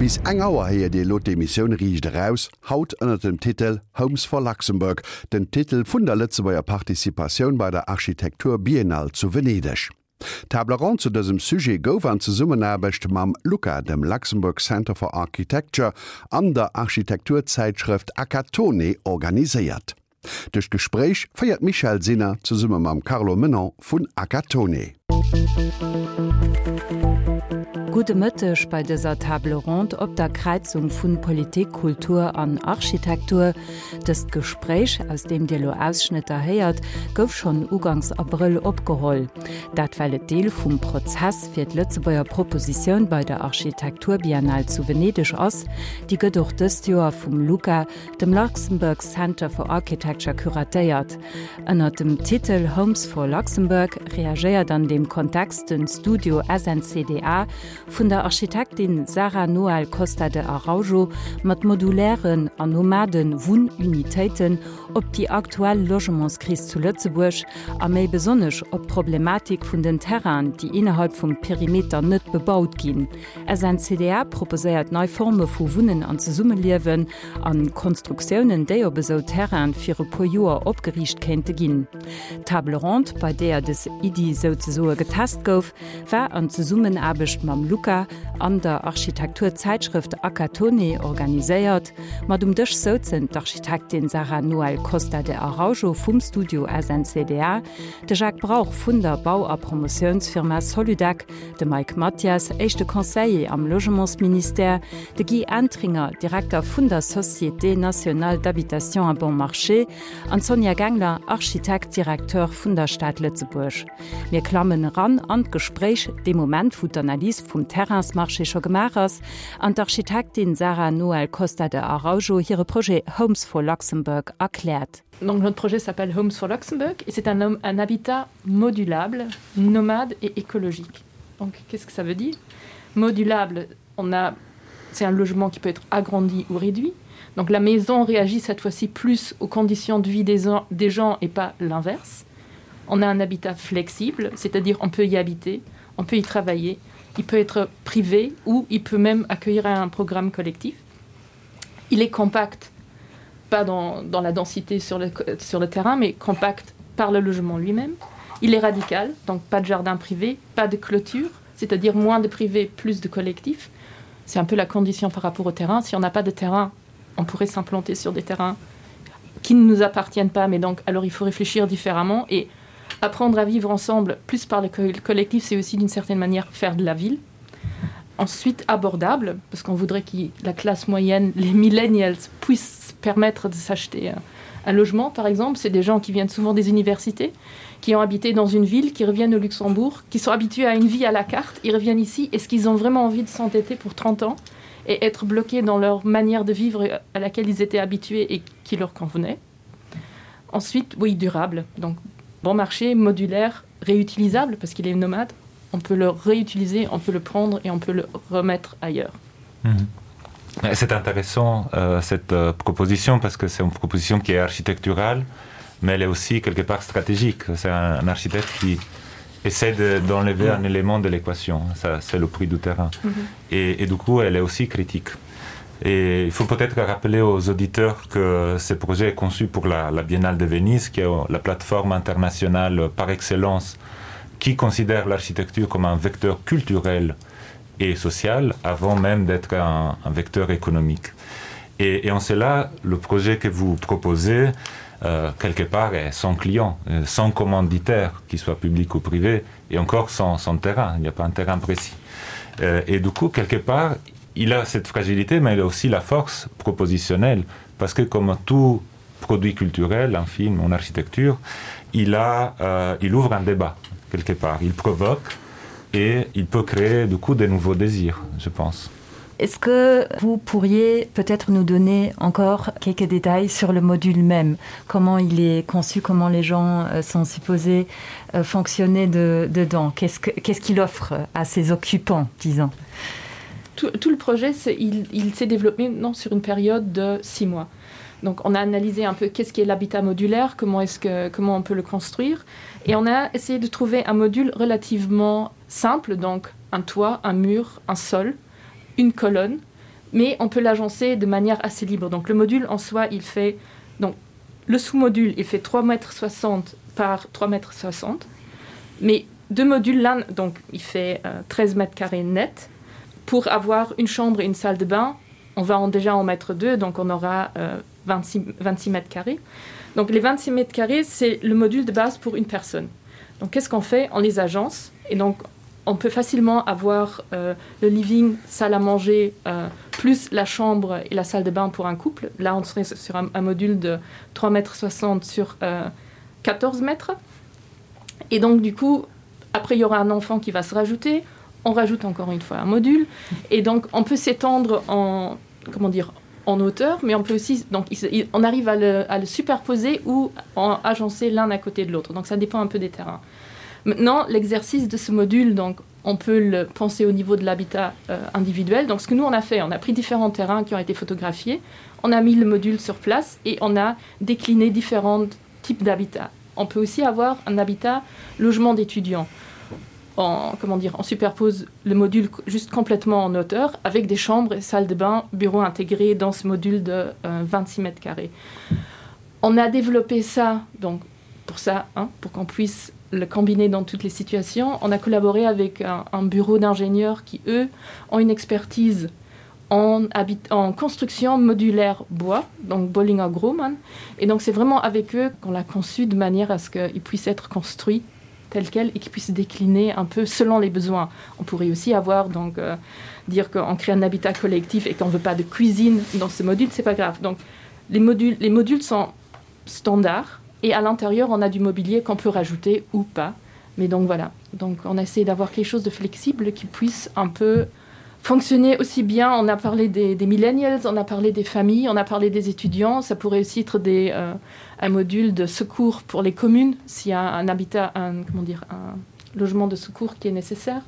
Bis eng Auer héiert Dir elo d'Emissioun Riicht Eraus, haut ënner dem Titel Homes for Luxembourg, den Titel vun der Lëtzebuerger Participatioun bei der Architektur Biennale zu Venedeg. D'Table ronde zu dësem Sujet gouf an Zesummenaarbecht mam LUCA, dem Luxembourg Center for Architecture, an der Architekturzäitschrëft Acatone organiséiert. Duerch d'Gespréich féiert d'Michèle Sinner zesumme mam Carlo Menon vun Acatone. Gudde Mëtteg bei dëser Table ronde op der Kräizung vun Politik, Kultur an Architektur. Dëst Gespréich, aus deem Dir elo Ausschnëtter héiert, gouf schonn ugangs Abrëll opgeholl. Dat well et Deel vum Prozess fir d'Lëtzebuerger Propositioun bei der Architekturbiennale zu Venedeg ass. Déi gëtt och dëst Joer vum LUCA, dem Luxembourg Center for Architecture curatéiert. Ënnert dem Titel Homes for Luxembourg reagéiert an deem Kontext den Studio SNCDA vun der Architektin Sara Noel Costa de Araujo mat modulären an nomade Wunnunitéiten op déi aktuell Logementskris zu Lëtzebuerg a méi besonnesch op d'Problematik vun den Terrainen, déi innerhalb vum Perimeter net bebaut ginn. SNCDA proposéiert nei Forme vu Wunnen an Zesummeliewen an Konstruktiounen, déi op esou Terraine fir e puer Joer opgeriicht kéinte ginn. D'Table ronde, bei deeër des Iddi souzesoe getest gouf, war an Zesummenaarbecht mam LUCA an der Architekturzäitschrëft Acatone organiséiert. Mat um Dësch souzen d'Architektin Sara Noel Costa de Araujo vum Studio SNCDA, de Jacques Brauch vun der Bau a Promotiounsfirma Soludec, de Mike Mathias, éischte Conseiller am Logementsministère, de Guy Entringer, Direkter vun der Société nationale d'habitation à bon marché, an d'Sonja Gengler, Architekt, Directeur vun der Stad Lëtzebuerg. Mir klammen eran an d'Gespréich, dee Moment, wou d'Analys vum Terrainsmarché scho gemaach ass an d'Architektin Sara Noel Costa de Araujo hire Projet Homes for Luxembourg erkläert. Donc notre projet s'appelle Homes for Luxembourg et c'est un, un habitat modulable, nomade et écologique. Donc qu'est-ce que ça veut dire Modulable, on a c'est un logement qui peut être agrandi ou réduit. Donc la maison réagit cette fois-ci plus aux conditions de vie des, des gens et pas l'inverse. On a un habitat flexible, c'est-à-dire on peut y habiter, on peut y travailler, il peut être privé ou il peut même accueillir un programme collectif. Il est compact, pas dans, dans la densité sur le, sur le terrain, mais compact par le logement lui-même. Il est radical, donc pas de jardin privé, pas de clôture, c'est-à-dire moins de privé, plus de collectif. C'est un peu la condition par rapport au terrain. Si on n'a pas de terrain, on pourrait s'implanter sur des terrains qui ne nous appartiennent pas, mais donc alors il faut réfléchir différemment et apprendre à vivre ensemble plus par le collectif, c'est aussi d'une certaine manière faire de la ville. Ensuite abordable, parce qu'on voudrait que la classe moyenne, les millennials puissent permettre de s'acheter un logement par exemple, c'est des gens qui viennent souvent des universités, qui ont habité dans une ville, qui reviennent au Luxembourg, qui sont habitués à une vie à la carte, ils reviennent ici, est-ce qu'ils ont vraiment envie de s'entêter pour 30 ans et être bloqués dans leur manière de vivre à laquelle ils étaient habitués et qui leur convenait. Ensuite, oui, durable, donc bon marché, modulaire, réutilisable parce qu'il est nomade, on peut le réutiliser, on peut le prendre et on peut le remettre ailleurs. Mmh. C'est intéressant euh, cette euh, proposition parce que c'est une proposition qui est architecturale, mais elle est aussi quelque part stratégique. C'est un, un architecte qui essaie d'enlever de, un élément de l'équation, c'est le prix du terrain. Mm -hmm. et, et du coup, elle est aussi critique. Et il faut peut-être rappeler aux auditeurs que ce projet est conçu pour la, la Biennale de Venise, qui est la plateforme internationale par excellence qui considère l'architecture comme un vecteur culturel et social avant même d'être un, un vecteur économique. Et, et en cela, le projet que vous proposez, euh, quelque part, est sans client, euh, sans commanditaire, qu'il soit public ou privé, et encore sans, sans terrain, il n'y a pas un terrain précis. Euh, et du coup, quelque part, il a cette fragilité, mais il a aussi la force propositionnelle, parce que comme tout produit culturel, un film, une architecture, il, a, euh, il ouvre un débat, quelque part, il provoque et il peut créer du coup de nouveaux désirs, je pense. Est-ce que vous pourriez peut-être nous donner encore quelques détails sur le module même Comment il est conçu, comment les gens euh, sont supposés euh, fonctionner de, dedans Qu'est-ce qu'il qu qu offre à ses occupants, disons tout, tout le projet, il, il s'est développé non, sur une période de six mois. Donc on a analysé un peu qu'est-ce qui est l'habitat modulaire, comment, est -ce que, comment on peut le construire. Et on a essayé de trouver un module relativement simple, donc un toit, un mur, un sol, une colonne. Mais on peut l'agencer de manière assez libre. Donc le module en soi, il fait donc le sous-module, il fait 3 mètres 60 par 3 mètres 60. Mais deux modules là, donc il fait euh, 13 mètres carrés net. Pour avoir une chambre et une salle de bain, on va en déjà en mettre deux, donc on aura euh, 26, 26 mètres carrés. Donc les 26 mètres carrés, c'est le module de base pour une personne. Donc qu'est-ce qu'on fait On les agence et donc on peut facilement avoir euh, le living, salle à manger, euh, plus la chambre et la salle de bain pour un couple. Là, on serait sur un, un module de 3 mètres 60 sur euh, 14 mètres. Et donc du coup, après il y aura un enfant qui va se rajouter, on rajoute encore une fois un module et donc on peut s'étendre en comment dire en hauteur mais on peut aussi donc il, on arrive à le, à le superposer ou en agencer l'un à côté de l'autre donc ça dépend un peu des terrains maintenant l'exercice de ce module donc on peut le penser au niveau de l'habitat euh, individuel donc ce que nous on a fait on a pris différents terrains qui ont été photographiés on a mis le module sur place et on a décliné différents types d'habitats on peut aussi avoir un habitat logement d'étudiants en comment dire on superpose le module juste complètement en hauteur avec des chambres et salles de bain bureaux intégrés dans ce module de euh, 26 mètres carrés on a développé ça donc pour ça hein, pour qu'on puisse le combiner dans toutes les situations on a collaboré avec un, un bureau d'ingénieurs qui eux ont une expertise en habit en construction modulaire bois donc Bollinger Grumman et donc c'est vraiment avec eux qu'on l'a conçu de manière à ce qu'il puisse être construit tel quel et qui puisse décliner un peu selon les besoins. On pourrait aussi avoir donc euh, dire qu'on crée un habitat collectif et qu'on veut pas de cuisine dans ce module, c'est pas grave. Donc les modules, les modules sont standards et à l'intérieur on a du mobilier qu'on peut rajouter ou pas. Mais donc voilà, donc on essaie d'avoir quelque chose de flexible qui puisse un peu fonctionner aussi bien. On a parlé des, des millennials, on a parlé des familles, on a parlé des étudiants, ça pourrait aussi être des, euh, un module de secours pour les communes s'il y a un habitat un, comment dire un logement de secours qui est nécessaire.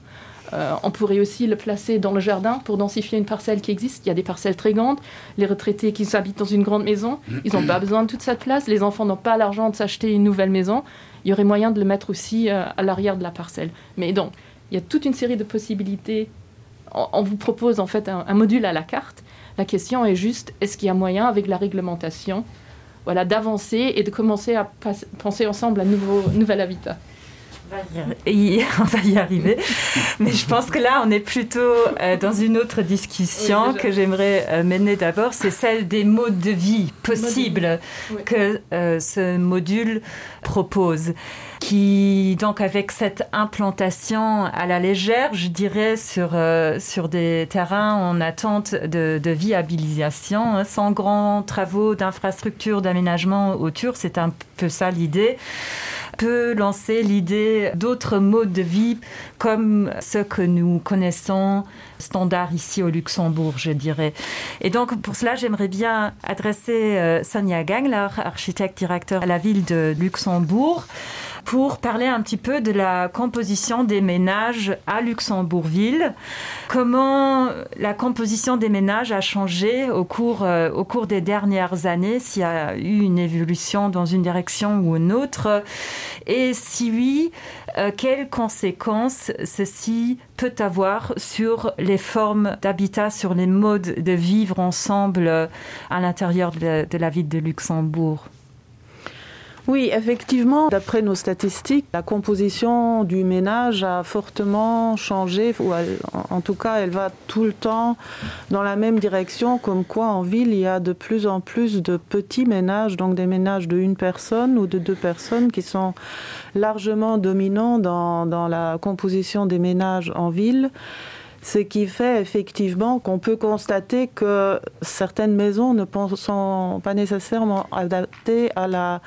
Euh, on pourrait aussi le placer dans le jardin pour densifier une parcelle qui existe. Il y a des parcelles très grandes. Les retraités qui s'habitent dans une grande maison, ils n'ont pas besoin de toute cette place. Les enfants n'ont pas l'argent de s'acheter une nouvelle maison. Il y aurait moyen de le mettre aussi euh, à l'arrière de la parcelle. Mais donc, il y a toute une série de possibilités. On, on vous propose en fait un, un module à la carte. La question est juste est-ce qu'il y a moyen avec la réglementation voilà, d'avancer et de commencer à penser ensemble à nouveau nouvel habitat. Et on va y arriver. Mais je pense que là, on est plutôt euh, dans une autre discussion oui, que j'aimerais euh, mener d'abord, c'est celle des modes de vie possibles oui. que euh, ce module propose qui donc avec cette implantation à la légère, je dirais sur, euh, sur des terrains en attente de, de viabilisation, hein, sans grands travaux d'infrastructures d'aménagement autour, c'est un peu ça l'idée peut lancer l'idée d'autres modes de vie comme ce que nous connaissons standard ici au Luxembourg, je dirais. Et donc pour cela, j'aimerais bien adresser euh, Sonia Gangler, architecte directeur à la ville de Luxembourg pour parler un petit peu de la composition des ménages à Luxembourgville. Comment la composition des ménages a changé au cours, euh, au cours des dernières années, s'il y a eu une évolution dans une direction ou une autre et si oui, euh, quelles conséquences ceci peut avoir sur les formes d'habitat, sur les modes de vivre ensemble euh, à l'intérieur de, de la ville de Luxembourg. Oui, effectivement, d'après nos statistiques, la composition du ménage a fortement changé ou elle, en tout cas elle va tout le temps dans la même direction comme quoi en ville il y a de plus en plus de petits ménages, donc des ménages de une personne ou de deux personnes qui sont largement dominants dans, dans la composition des ménages en ville. Ce qui fait effectivement qu'on peut constater que certaines maisons ne sont pas nécessairement adaptées à la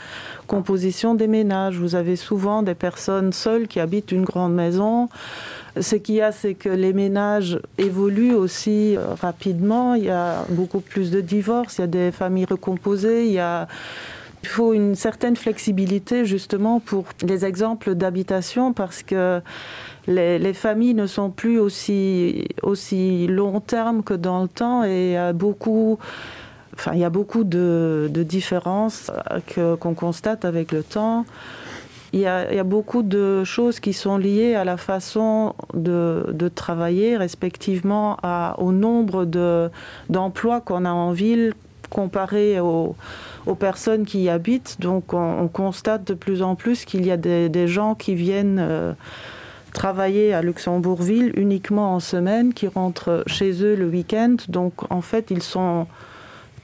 composition des ménages. Vous avez souvent des personnes seules qui habitent une grande maison. Ce qu'il y a, c'est que les ménages évoluent aussi euh, rapidement. Il y a beaucoup plus de divorces, il y a des familles recomposées, il y a Il faut une certaine flexibilité justement pour les exemples d'habitation parce que les, les familles ne sont plus aussi, aussi long terme que dans le temps et euh, beaucoup enfin, il y a beaucoup de, de différences euh, qu'on qu constate avec le temps. Il y, a, il y a beaucoup de choses qui sont liées à la façon de, de travailler respectivement à, au nombre d'emplois de, qu'on a en ville comparé aux, aux personnes qui y habitent. Donc on, on constate de plus en plus qu'il y a des, des gens qui viennent euh, travailler à Luxembourgville uniquement en semaine, qui rentrent chez eux le week-end. Donc en fait ils sont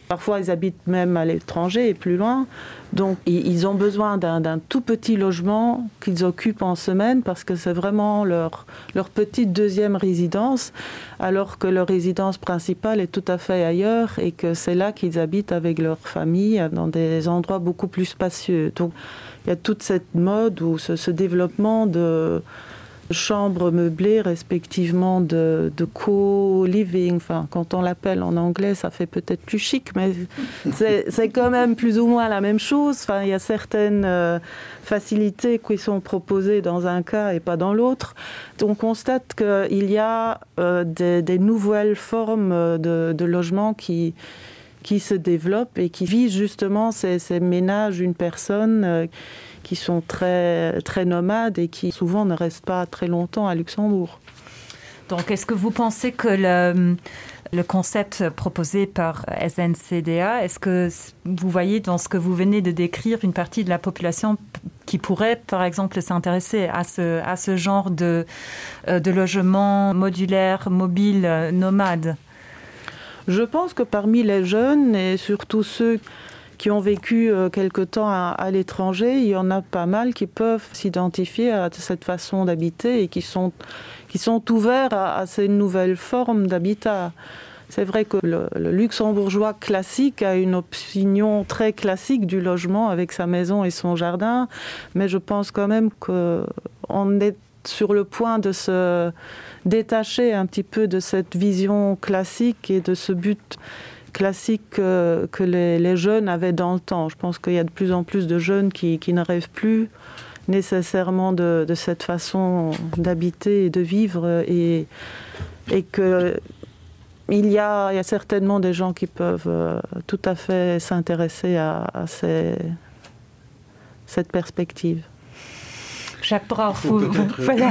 parfois ils habitent même à l'étranger et plus loin. Donc ils ont besoin d'un tout petit logement qu'ils occupent en semaine parce que c'est vraiment leur, leur petite deuxième résidence alors que leur résidence principale est tout à fait ailleurs et que c'est là qu'ils habitent avec leur famille dans des endroits beaucoup plus spacieux. Donc il y a toute cette mode ou ce, ce développement de, chambres meublées respectivement de, de co-living enfin quand on l'appelle en anglais ça fait peut-être plus chic mais c'est quand même plus ou moins la même chose enfin il y a certaines euh, facilités qui sont proposées dans un cas et pas dans l'autre on constate qu'il y a euh, des, des nouvelles formes de, de logement qui qui se développent et qui visent justement ces, ces ménages une personne euh, qui sont très très nomades et qui souvent ne restent pas très longtemps à Luxembourg. Donc est-ce que vous pensez que le, le concept proposé par SNCDA, est-ce que vous voyez dans ce que vous venez de décrire une partie de la population qui pourrait par exemple s'intéresser à ce, à ce genre de, euh, de logement modulaire, mobile, nomade? Je pense que parmi les jeunes et surtout ceux qui ont vécu euh, quelque temps à, à l'étranger, il y en a pas mal qui peuvent s'identifier à cette façon d'habiter et qui sont, qui sont ouverts à, à ces nouvelles formes d'habitat. C'est vrai que le, le luxembourgeois classique a une opinion très classique du logement avec sa maison et son jardin, mais je pense quand même qu'on est sur le point de se détacher un petit peu de cette vision classique et de ce but classique que, que les, les jeunes avaient dans le temps. Je pense qu'il y a de plus en plus de jeunes qui, qui ne rêvent plus nécessairement de, de cette façon d'habiter et de vivre et, et que il y, a, il y a certainement des gens qui peuvent euh, tout à fait s'intéresser à, à ces, cette perspective. Jacques Brauch, vous, vous, voilà.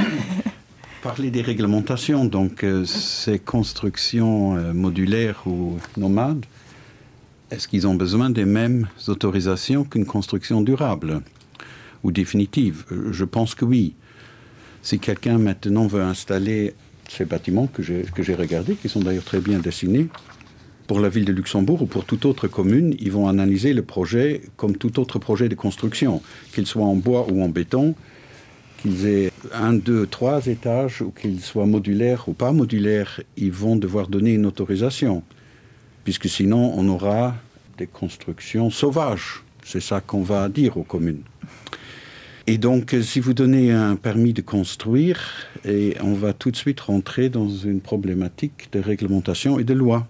Parler des réglementations, donc euh, ces constructions euh, modulaires ou nomades, est-ce qu'ils ont besoin des mêmes autorisations qu'une construction durable ou définitive euh, Je pense que oui. Si quelqu'un maintenant veut installer ces bâtiments que j'ai regardés, qui sont d'ailleurs très bien dessinés, pour la ville de Luxembourg ou pour toute autre commune, ils vont analyser le projet comme tout autre projet de construction, qu'il soit en bois ou en béton, qu'ils aient un, deux, trois étages ou qu'ils soient modulaires ou pas modulaires, ils vont devoir donner une autorisation, puisque sinon on aura des constructions sauvages. C'est ça qu'on va dire aux communes. Et donc si vous donnez un permis de construire, et on va tout de suite rentrer dans une problématique de réglementation et de loi.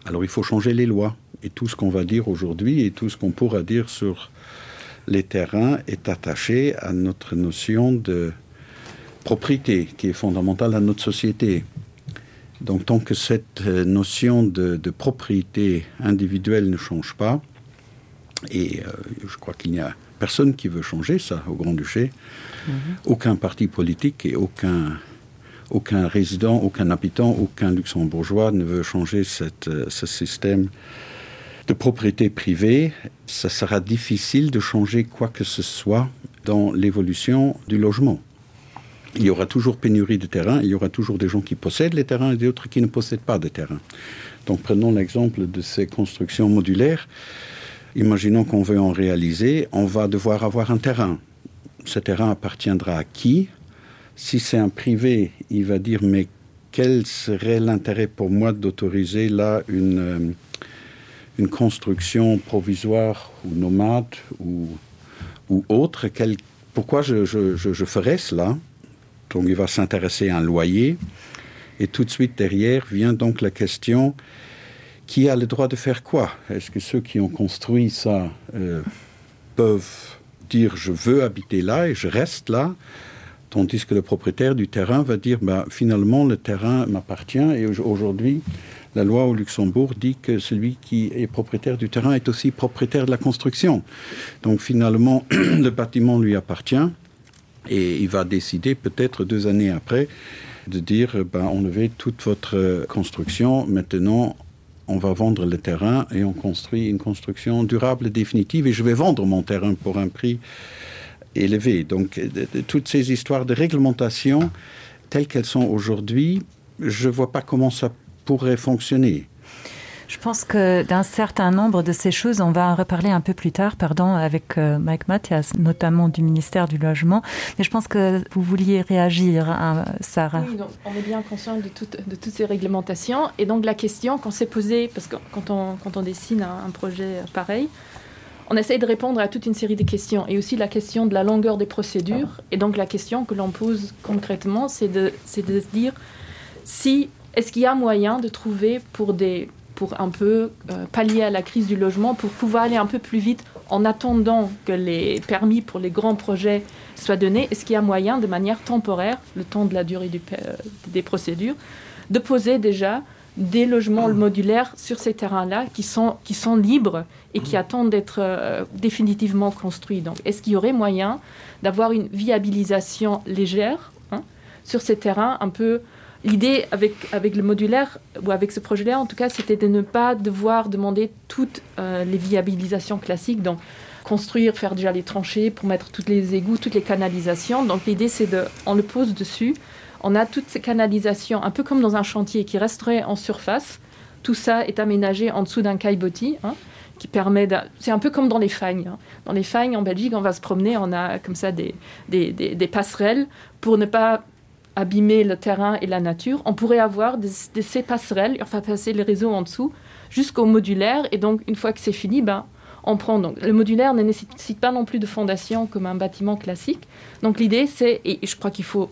Alors il faut changer les lois et tout ce qu'on va dire aujourd'hui et tout ce qu'on pourra dire sur les terrains est attaché à notre notion de propriété qui est fondamentale à notre société. Donc tant que cette euh, notion de, de propriété individuelle ne change pas, et euh, je crois qu'il n'y a personne qui veut changer ça au Grand-Duché, mm -hmm. aucun parti politique et aucun, aucun résident, aucun habitant, aucun luxembourgeois ne veut changer cette, euh, ce système de propriété privée, ça sera difficile de changer quoi que ce soit dans l'évolution du logement. Il y aura toujours pénurie de terrain, il y aura toujours des gens qui possèdent les terrains et d'autres qui ne possèdent pas de terrain. Donc prenons l'exemple de ces constructions modulaires. Imaginons qu'on veut en réaliser, on va devoir avoir un terrain. Ce terrain appartiendra à qui Si c'est un privé, il va dire mais quel serait l'intérêt pour moi d'autoriser là une, euh, une construction provisoire ou nomade ou, ou autre quel, pourquoi je, je, je, je ferais cela donc il va s'intéresser à un loyer et tout de suite derrière vient donc la question qui a le droit de faire quoi est-ce que ceux qui ont construit ça euh, peuvent dire je veux habiter là et je reste là tandis que le propriétaire du terrain va dire ben, finalement le terrain m'appartient et aujourd'hui La loi au Luxembourg dit que celui qui est propriétaire du terrain est aussi propriétaire de la construction. Donc finalement, le bâtiment lui appartient et il va décider peut-être deux années après de dire ben, enlevez toute votre construction, maintenant on va vendre le terrain et on construit une construction durable et définitive et je vais vendre mon terrain pour un prix élevé. Donc de, de, toutes ces histoires de réglementation telles qu'elles sont aujourd'hui, je ne vois pas comment ça pourrait fonctionner. Je pense que d'un certain nombre de ces choses, on va en reparler un peu plus tard, pardon, avec euh, Mike Mathias, notamment du ministère du Logement. Mais je pense que vous vouliez réagir, hein, Sarah. Oui, donc, on est bien conscient de, tout, de toutes ces réglementations. Et donc la question qu'on s'est posée, parce que quand on, quand on dessine un, un projet pareil, on essaye de répondre à toute une série de questions et aussi la question de la longueur des procédures. Et donc la question que l'on pose concrètement, c'est de, de se dire si est-ce qu'il y a moyen de trouver pour des pour un peu euh, pallier à la crise du logement, pour pouvoir aller un peu plus vite en attendant que les permis pour les grands projets soient donnés, est-ce qu'il y a moyen de manière temporaire, le temps de la durée du, euh, des procédures, de poser déjà des logements modulaires sur ces terrains-là qui sont, qui sont libres et qui attendent d'être euh, définitivement construits. Donc est-ce qu'il y aurait moyen d'avoir une viabilisation légère hein, sur ces terrains un peu, L'idée avec, avec le modulaire ou avec ce projet-là, en tout cas, c'était de ne pas devoir demander toutes euh, les viabilisations classiques, donc construire, faire déjà les tranchées pour mettre toutes les égouts, toutes les canalisations. Donc l'idée, c'est de, on le pose dessus, on a toutes ces canalisations, un peu comme dans un chantier qui resterait en surface. Tout ça est aménagé en dessous d'un caillebotis. Hein qui permet c'est un peu comme dans les fagnes hein. dans les fagnes en Belgique on va se promener on a comme ça des, des, des, des passerelles pour ne pas abîmer le terrain et la nature, on pourrait avoir des, des, ces passerelles, enfin passer les réseaux en dessous jusqu'au modulaire et donc une fois que c'est fini, ben, on prend donc le modulaire ne nécessite pas non plus de fondation comme un bâtiment classique. Donc l'idée c'est et je crois qu'il faut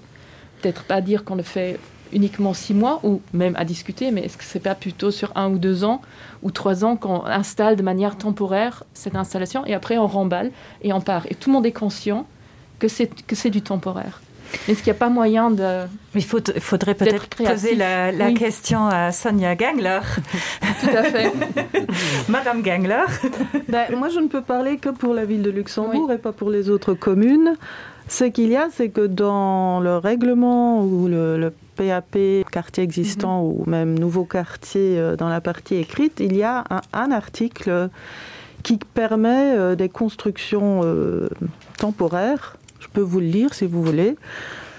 peut-être pas dire qu'on le fait uniquement six mois ou même à discuter, mais est-ce que c'est pas plutôt sur un ou deux ans ou trois ans qu'on installe de manière temporaire cette installation et après on remballe et on part et tout le monde est conscient que c'est du temporaire. Est-ce qu'il n'y a pas moyen de Il faut, faudrait peut-être poser la, la oui. question à Sonia Gangler. Tout à fait. Madame Gangler. Ben, moi, je ne peux parler que pour la ville de Luxembourg oui. et pas pour les autres communes. Ce qu'il y a, c'est que dans le règlement ou le, le PAP quartier existant mm -hmm. ou même nouveau quartier euh, dans la partie écrite, il y a un, un article qui permet euh, des constructions euh, temporaires Je peux vous le lire si vous voulez.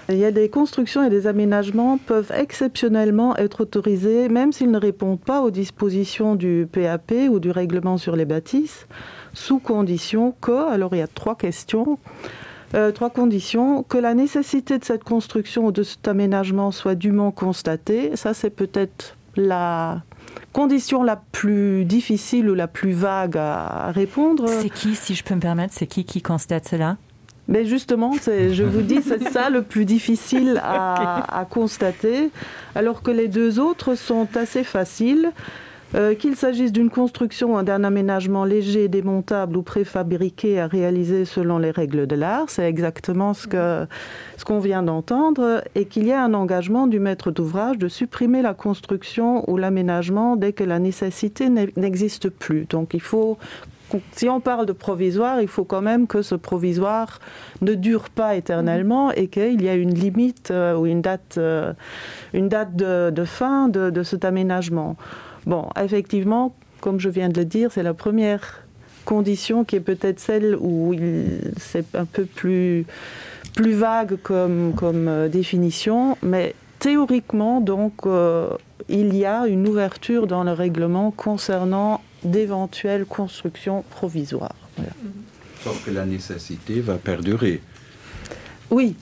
Il y a des constructions et des aménagements peuvent exceptionnellement être autorisés, même s'ils ne répondent pas aux dispositions du PAP ou du règlement sur les bâtisses, sous condition que, alors il y a trois questions, euh, trois conditions, que la nécessité de cette construction ou de cet aménagement soit dûment constatée. Ça, c'est peut-être la condition la plus difficile ou la plus vague à répondre. C'est qui, si je peux me permettre, c'est qui qui constate cela Mais justement, je vous dis, c'est ça le plus difficile à, okay. à constater, alors que les deux autres sont assez faciles. Euh, qu'il s'agisse d'une construction ou d'un aménagement léger, démontable ou préfabriqué à réaliser selon les règles de l'art, c'est exactement ce qu'on ce qu'on vient d'entendre, et qu'il y a un engagement du maître d'ouvrage de supprimer la construction ou l'aménagement dès que la nécessité n'existe plus. Donc il faut si on parle de provisoire, il faut quand même que ce provisoire ne dure pas éternellement et qu'il y a une limite euh, ou une date, euh, une date de, de fin de, de cet aménagement. Bon, effectivement, comme je viens de le dire, c'est la première condition qui est peut-être celle où c'est un peu plus, plus vague comme, comme euh, définition, mais théoriquement, donc, euh, il y a une ouverture dans le règlement concernant d'éventuelles constructions provisoires. Voilà. Sauf que la nécessité va perdurer. Oui.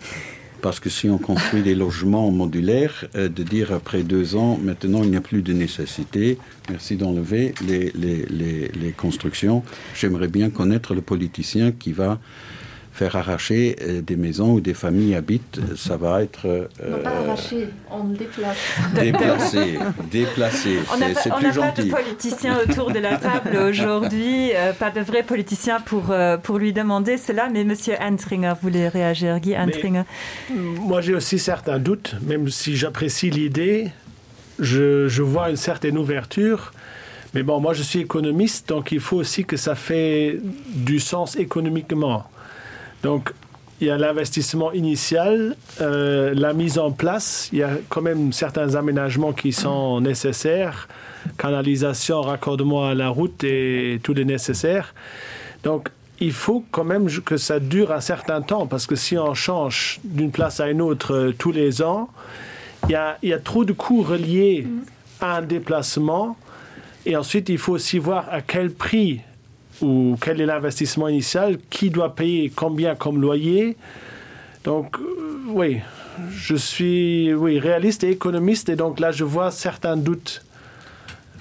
Parce que si on construit des logements modulaires, euh, de dire après deux ans, maintenant il n'y a plus de nécessité, merci d'enlever les, les, les, les constructions. J'aimerais bien connaître le politicien qui va faire arracher euh, des maisons où des familles habitent, ça va être euh, non, pas arracher, on déplace. Déplacé, déplacé, c'est plus gentil. Pas de politiciens autour de la table aujourd'hui, euh, pas de vrais politiciens pour, euh, pour lui demander cela, mais monsieur Entringer voulait réagir. Guy Entringer. Mais, moi j'ai aussi certains doutes, même si j'apprécie l'idée. Je, je vois une certaine ouverture, mais bon, moi je suis économiste, donc il faut aussi que ça fait du sens économiquement. Donc il y a l'investissement initial, euh, la mise en place, il y a quand même certains aménagements qui sont nécessaires, canalisation, raccordement à la route et tout le nécessaire. Donc il faut quand même que ça dure un certain temps parce que si on change d'une place à une autre euh, tous les ans, il y a, il y a trop de coûts reliés à un déplacement et ensuite il faut aussi voir à quel prix ou quel est l'investissement initial, qui doit payer combien comme loyer. Donc euh, oui, je suis oui, réaliste et économiste et donc là je vois certains doutes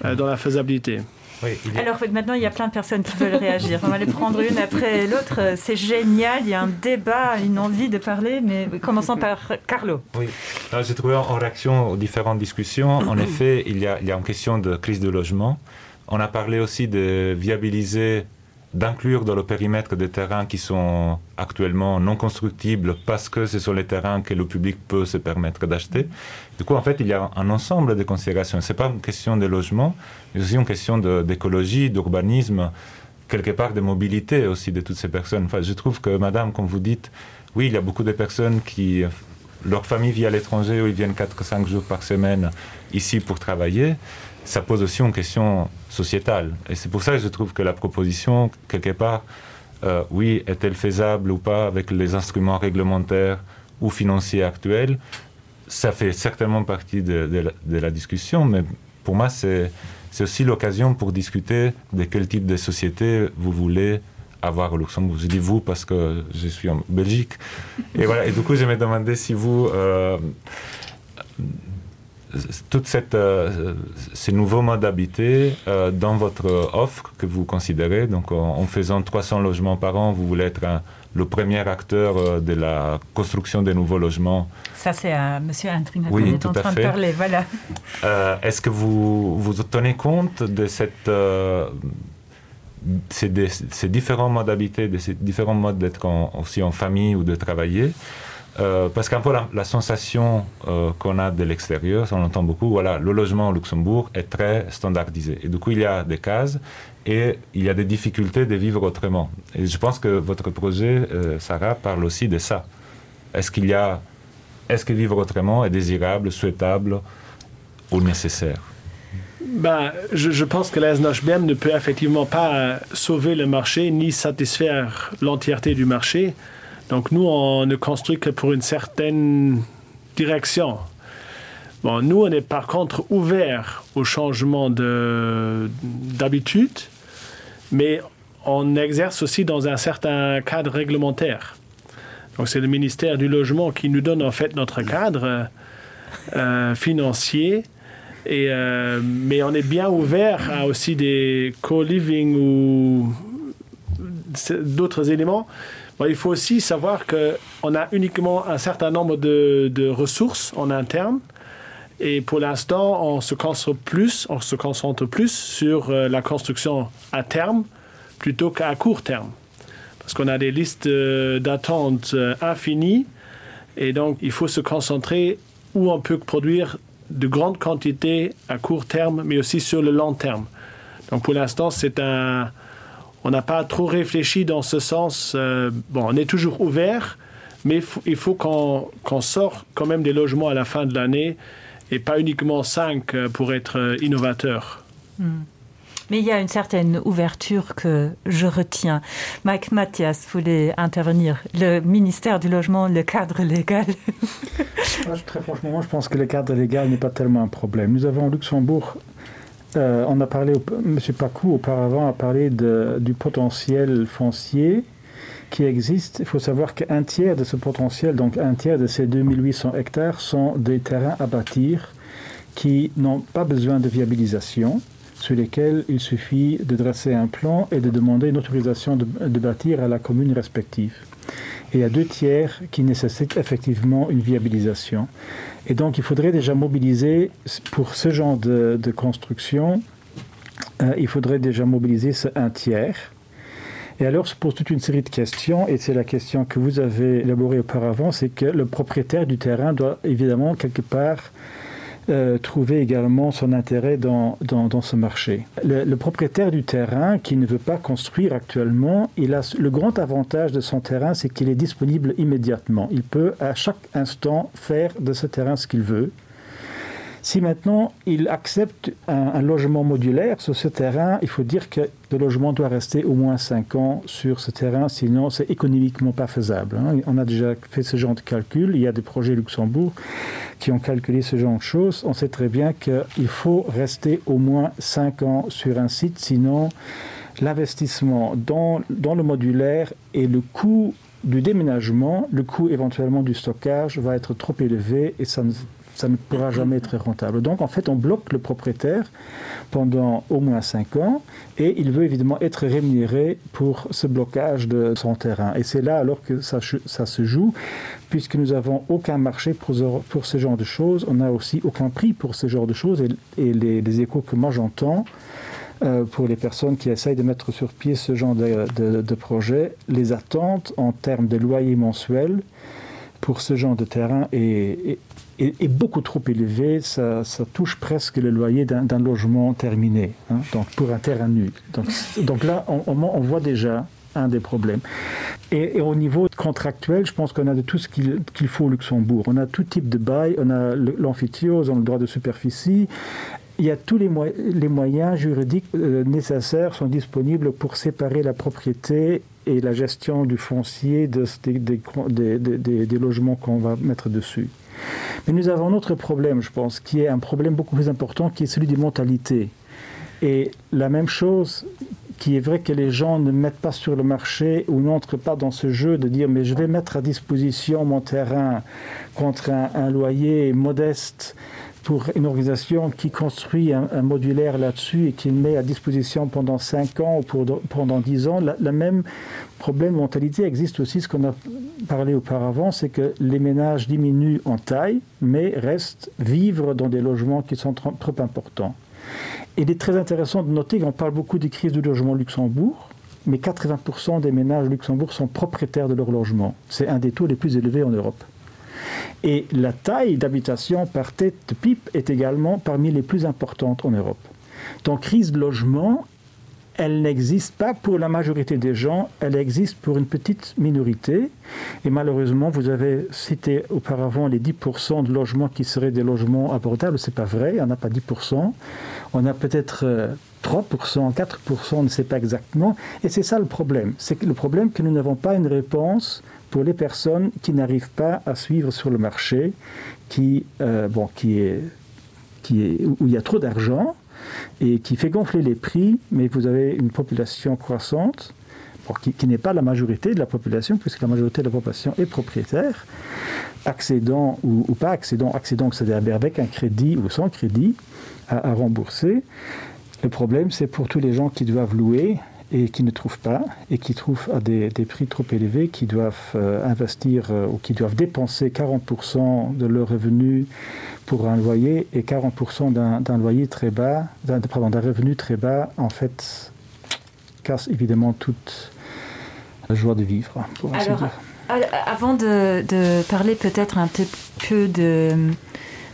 euh, dans la faisabilité. Oui, il Alors maintenant il y a plein de personnes qui veulent réagir. On va les prendre une après l'autre. C'est génial, il y a un débat, une envie de parler, mais commençons par Carlo. Oui. J'ai trouvé en réaction aux différentes discussions, en effet, il y, a, il y a une question de crise de logement. On a parlé aussi de viabiliser d'inclure dans le périmètre des terrains qui sont actuellement non constructibles parce que ce sont les terrains que le public peut se permettre d'acheter. Du coup, en fait, il y a un ensemble de considérations. Ce n'est pas une question de logement, mais aussi une question d'écologie, d'urbanisme, quelque part de mobilité aussi de toutes ces personnes. Enfin, je trouve que, madame, comme vous dites, oui, il y a beaucoup de personnes qui leur famille vit à l'étranger ou ils viennent 4 ou 5 jours par semaine ici pour travailler. Ça pose aussi une question sociétale. Et c'est pour ça que je trouve que la proposition, quelque part, euh, oui, est-elle faisable ou pas avec les instruments réglementaires ou financiers actuels, ça fait certainement partie de, de, la, de la discussion, mais pour moi, c'est aussi l'occasion pour discuter de quel type de société vous voulez avoir au Luxembourg. Je dis vous parce que je suis en Belgique. Et voilà, et du coup, je me demandais si vous... Euh, toute cette euh, ces nouveaux modes d'habiter euh, dans votre offre que vous considérez donc en, en faisant 300 logements par an vous voulez être un, le premier acteur euh, de la construction des nouveaux logements ça c'est à monsieur Intrina oui, est en train de parler voilà euh, est-ce que vous vous tenez compte de cette euh, ces, des, ces différents modes d'habiter de ces différents modes d'être aussi en famille ou de travailler et Euh, parce qu'un peu la, la sensation euh, qu'on a de l'extérieur, on entend beaucoup, voilà, le logement au Luxembourg est très standardisé. Et du coup, il y a des cases et il y a des difficultés de vivre autrement. Et je pense que votre projet, euh, Sarah, parle aussi de ça. Est-ce qu'il y a est-ce que vivre autrement est désirable, souhaitable ou nécessaire? Ben, je, je pense que la SNHBM ne peut effectivement pas sauver le marché ni satisfaire l'entièreté du marché. Donc nous, on ne construit que pour une certaine direction. Bon, nous, on est par contre ouvert au changement d'habitude, mais on exerce aussi dans un certain cadre réglementaire. Donc c'est le ministère du logement qui nous donne en fait notre cadre euh, financier. Et, euh, mais on est bien ouvert à aussi des co-living ou d'autres éléments. Bon, il faut aussi savoir qu'on a uniquement un certain nombre de, de ressources en interne. Et pour l'instant, on se concentre plus, on se concentre plus sur euh, la construction à terme plutôt qu'à court terme. Parce qu'on a des listes euh, d'attente euh, infinies et donc il faut se concentrer où on peut produire de grandes quantités à court terme, mais aussi sur le long terme. Donc pour l'instant, c'est un on n'a pas trop réfléchi dans ce sens. Euh, bon, on est toujours ouvert, mais il faut qu'on qu sort quand même des logements à la fin de l'année et pas uniquement 5 euh, pour être euh, innovateur. Mm. Mais il y a une certaine ouverture que je retiens. Mike Mathias voulait intervenir. Le ministère du logement, le cadre légal. Ah, très franchement, moi, je pense que le cadre légal n'est pas tellement un problème. Nous avons au Luxembourg euh, on a parlé monsieur Pacou auparavant a parlé de, du potentiel foncier qui existe. Il faut savoir qu'un tiers de ce potentiel, donc un tiers de ces 2800 hectares sont des terrains à bâtir qui n'ont pas besoin de viabilisation sur lesquels il suffit de dresser un plan et de demander une autorisation de, de bâtir à la commune respective. Et il y a deux tiers qui nécessitent effectivement une viabilisation. Et donc il faudrait déjà mobiliser pour ce genre de, de construction, euh, il faudrait déjà mobiliser ce un tiers. Et alors se pose toute une série de questions, et c'est la question que vous avez élaborée auparavant, c'est que le propriétaire du terrain doit évidemment quelque part euh, trouver également son intérêt dans, dans, dans ce marché. Le, le propriétaire du terrain qui ne veut pas construire actuellement, il a le grand avantage de son terrain, c'est qu'il est disponible immédiatement. Il peut à chaque instant faire de ce terrain ce qu'il veut. Si maintenant il accepte un, un logement modulaire sur ce terrain, il faut dire que le logement doit rester au moins 5 ans sur ce terrain, sinon c'est économiquement pas faisable. Hein. On a déjà fait ce genre de calcul, il y a des projets Luxembourg qui ont calculé ce genre de choses. On sait très bien qu'il faut rester au moins 5 ans sur un site, sinon l'investissement dans, dans le modulaire et le coût du déménagement, le coût éventuellement du stockage va être trop élevé et ça ne ça ne pourra jamais être rentable. Donc en fait, on bloque le propriétaire pendant au moins 5 ans et il veut évidemment être rémunéré pour ce blocage de son terrain. Et c'est là alors que ça, ça se joue, puisque nous n'avons aucun marché pour, pour ce genre de choses, on n'a aussi aucun prix pour ce genre de choses et, et les, les échos que moi j'entends, euh, pour les personnes qui essayent de mettre sur pied ce genre de, de, de projet, les attentes en termes de loyer mensuel pour ce genre de terrain est, est, est, est beaucoup trop élevé, ça, ça touche presque le loyer d'un logement terminé, hein, donc pour un terrain nu. Donc, donc là, on, on, on voit déjà un des problèmes. Et, et au niveau contractuel, je pense qu'on a de tout ce qu'il qu faut au Luxembourg. On a tout type de bail, on a l'amphithéose, on a le droit de superficie. Il y a tous les, mo les moyens juridiques euh, nécessaires sont disponibles pour séparer la propriété et la gestion du foncier de, des, des, des, des, des logements qu'on va mettre dessus. Mais nous avons un autre problème, je pense, qui est un problème beaucoup plus important, qui est celui des mentalités. Et la même chose qui est vrai que les gens ne mettent pas sur le marché ou n'entrent pas dans ce jeu de dire mais je vais mettre à disposition mon terrain contre un, un loyer modeste pour une organisation qui construit un, un modulaire là-dessus et qui le met à disposition pendant 5 ans ou pour, pendant 10 ans, la, la même problème de mentalité existe aussi ce qu'on a parlé auparavant, c'est que les ménages diminuent en taille mais restent vivre dans des logements qui sont trop, trop importants. Il est très intéressant de noter qu'on parle beaucoup des crises du logement Luxembourg, mais 80% des ménages Luxembourg sont propriétaires de leur logement. C'est un des taux les plus élevés en Europe. Et la taille d'habitation par tête de pipe est également parmi les plus importantes en Europe. Donc crise de logement, elle n'existe pas pour la majorité des gens, elle existe pour une petite minorité. Et malheureusement, vous avez cité auparavant les 10% de logements qui seraient des logements abordables. Ce n'est pas vrai, on n'a pas 10%. On a peut-être 3%, euh, 4%, on ne sait pas exactement. Et c'est ça le problème. C'est le problème que nous n'avons pas une réponse pour les personnes qui n'arrivent pas à suivre sur le marché, qui, euh, bon, qui est, qui est, où il y a trop d'argent et qui fait gonfler les prix, mais vous avez une population croissante pour qui, qui n'est pas la majorité de la population, puisque la majorité de la population est propriétaire, accédant ou, ou pas accédant, accédant, c'est-à-dire avec un crédit ou sans crédit à, à rembourser. Le problème, c'est pour tous les gens qui doivent louer et qui ne trouvent pas et qui trouvent à des, des prix trop élevés, qui doivent euh, investir euh, ou qui doivent dépenser 40% de leurs revenus pour un loyer et 40% d'un loyer très bas, d'un revenu très bas, en fait, casse évidemment toute la joie de vivre. Pour Alors, dire. avant de, de parler peut-être un petit peu de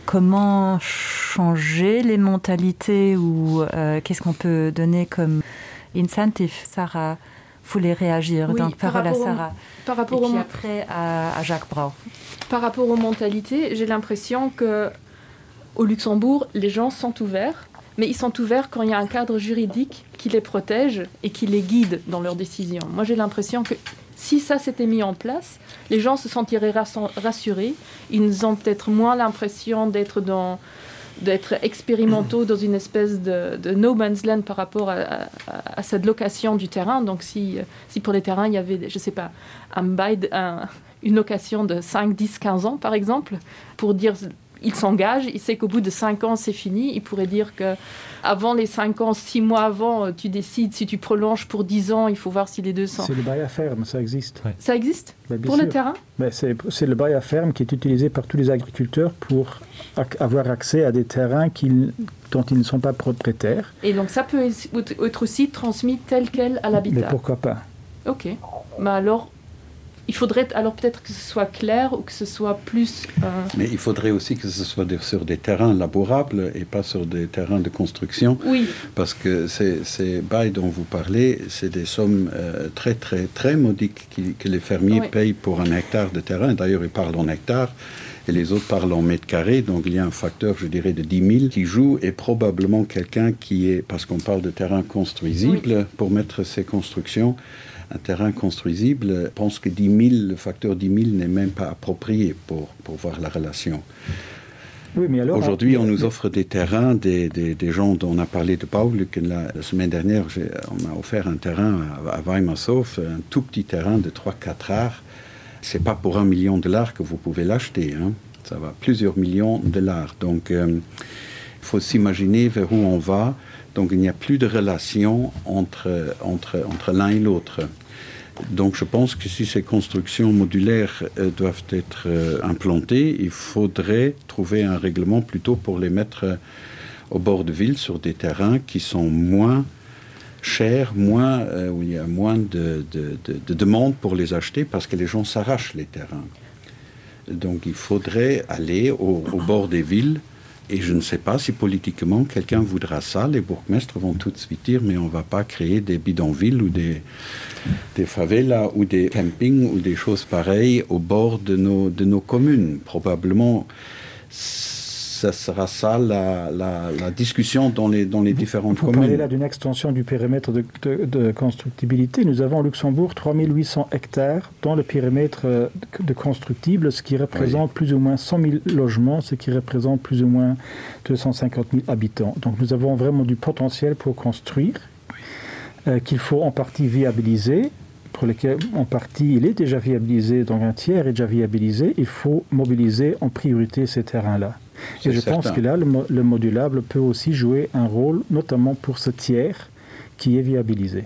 comment changer les mentalités ou euh, qu'est-ce qu'on peut donner comme incentive Sarah voulait réagir oui, donc par parole à Sarah au, par rapport Et puis au, après à, à Jacques Brau. Par rapport aux mentalités, j'ai l'impression que au Luxembourg, les gens sont ouverts, mais ils sont ouverts quand il y a un cadre juridique qui les protège et qui les guide dans leurs décisions. Moi j'ai l'impression que si ça s'était mis en place, les gens se sentiraient rassurés, ils ont peut-être moins l'impression d'être dans d'être expérimentaux dans une espèce de, de no man's land par rapport à, à, à cette location du terrain. Donc si, si pour les terrains il y avait je sais pas un bail un, une location de 5 10 15 ans par exemple pour dire il s'engage, il sait qu'au bout de 5 ans c'est fini, il pourrait dire que avant les 5 ans, 6 mois avant, tu décides si tu prolonges pour 10 ans, il faut voir si les 200. C'est le bail à ferme, ça existe. Ouais. Ça existe Mais pour sûr. le terrain C'est le bail à ferme qui est utilisé par tous les agriculteurs pour ac avoir accès à des terrains qu dont ils ne sont pas propriétaires. Et donc ça peut être aussi transmis tel quel à l'habitat. Mais pourquoi pas Ok. Mais alors. Il faudrait alors peut-être que ce soit clair ou que ce soit plus euh... Mais il faudrait aussi que ce soit des, sur des terrains labourables et pas sur des terrains de construction oui. parce que ces, ces bails dont vous parlez, c'est des sommes euh, très très très modiques qui, que les fermiers oui. payent pour un hectare de terrain. D'ailleurs, ils parlent en hectare et les autres parlent en mètres carrés. Donc il y a un facteur, je dirais, de 10 000 qui joue et probablement quelqu'un qui est, parce qu'on parle de terrain construisible oui. pour mettre ces constructions, un terrain construisible pense que 10 000, le facteur 10 000 n'est même pas approprié pour, pour voir la relation. Oui, Aujourd'hui, on nous offre des terrains, des, des, des gens dont on a parlé de Paul, que la, la semaine dernière, on m'a offert un terrain à, à Weimershof, un tout petit terrain de 3-4 arts. C'est pas pour un million de dollars que vous pouvez l'acheter. Ça va plusieurs millions de dollars. Donc euh, il faut s'imaginer vers où on va. Donc il n'y a plus de relation entre, entre, entre l'un et l'autre. Donc je pense que si ces constructions modulaires euh, doivent être euh, implantées, il faudrait trouver un règlement plutôt pour les mettre euh, au bord de ville sur des terrains qui sont moins chers, moins, euh, où il y a moins de, de, de, de demandes pour les acheter parce que les gens s'arrachent les terrains. Donc il faudrait aller au, au bord des villes, Et je ne sais pas si politiquement quelqu'un voudra ça. Les bourgmestres vont tout de suite dire mais on ne va pas créer des bidonvilles ou des, des favelas ou des campings ou des choses pareilles au bord de nos, de nos communes. Probablement ça sera ça la, la, la discussion dans les, dans les différentes vous communes. là d'une extension du périmètre de, de, de constructibilité. Nous avons au Luxembourg 3800 hectares dans le périmètre euh, de constructible, ce qui représente oui. plus ou moins 100 000 logements, ce qui représente plus ou moins 250 000 habitants. Donc nous avons vraiment du potentiel pour construire oui. euh, qu'il faut en partie viabiliser pour lequel en partie il est déjà viabilisé, donc un tiers est déjà viabilisé, il faut mobiliser en priorité ces terrains-là. Et je certain. pense que là, le, le modulable peut aussi jouer un rôle, notamment pour ce tiers qui est viabilisé.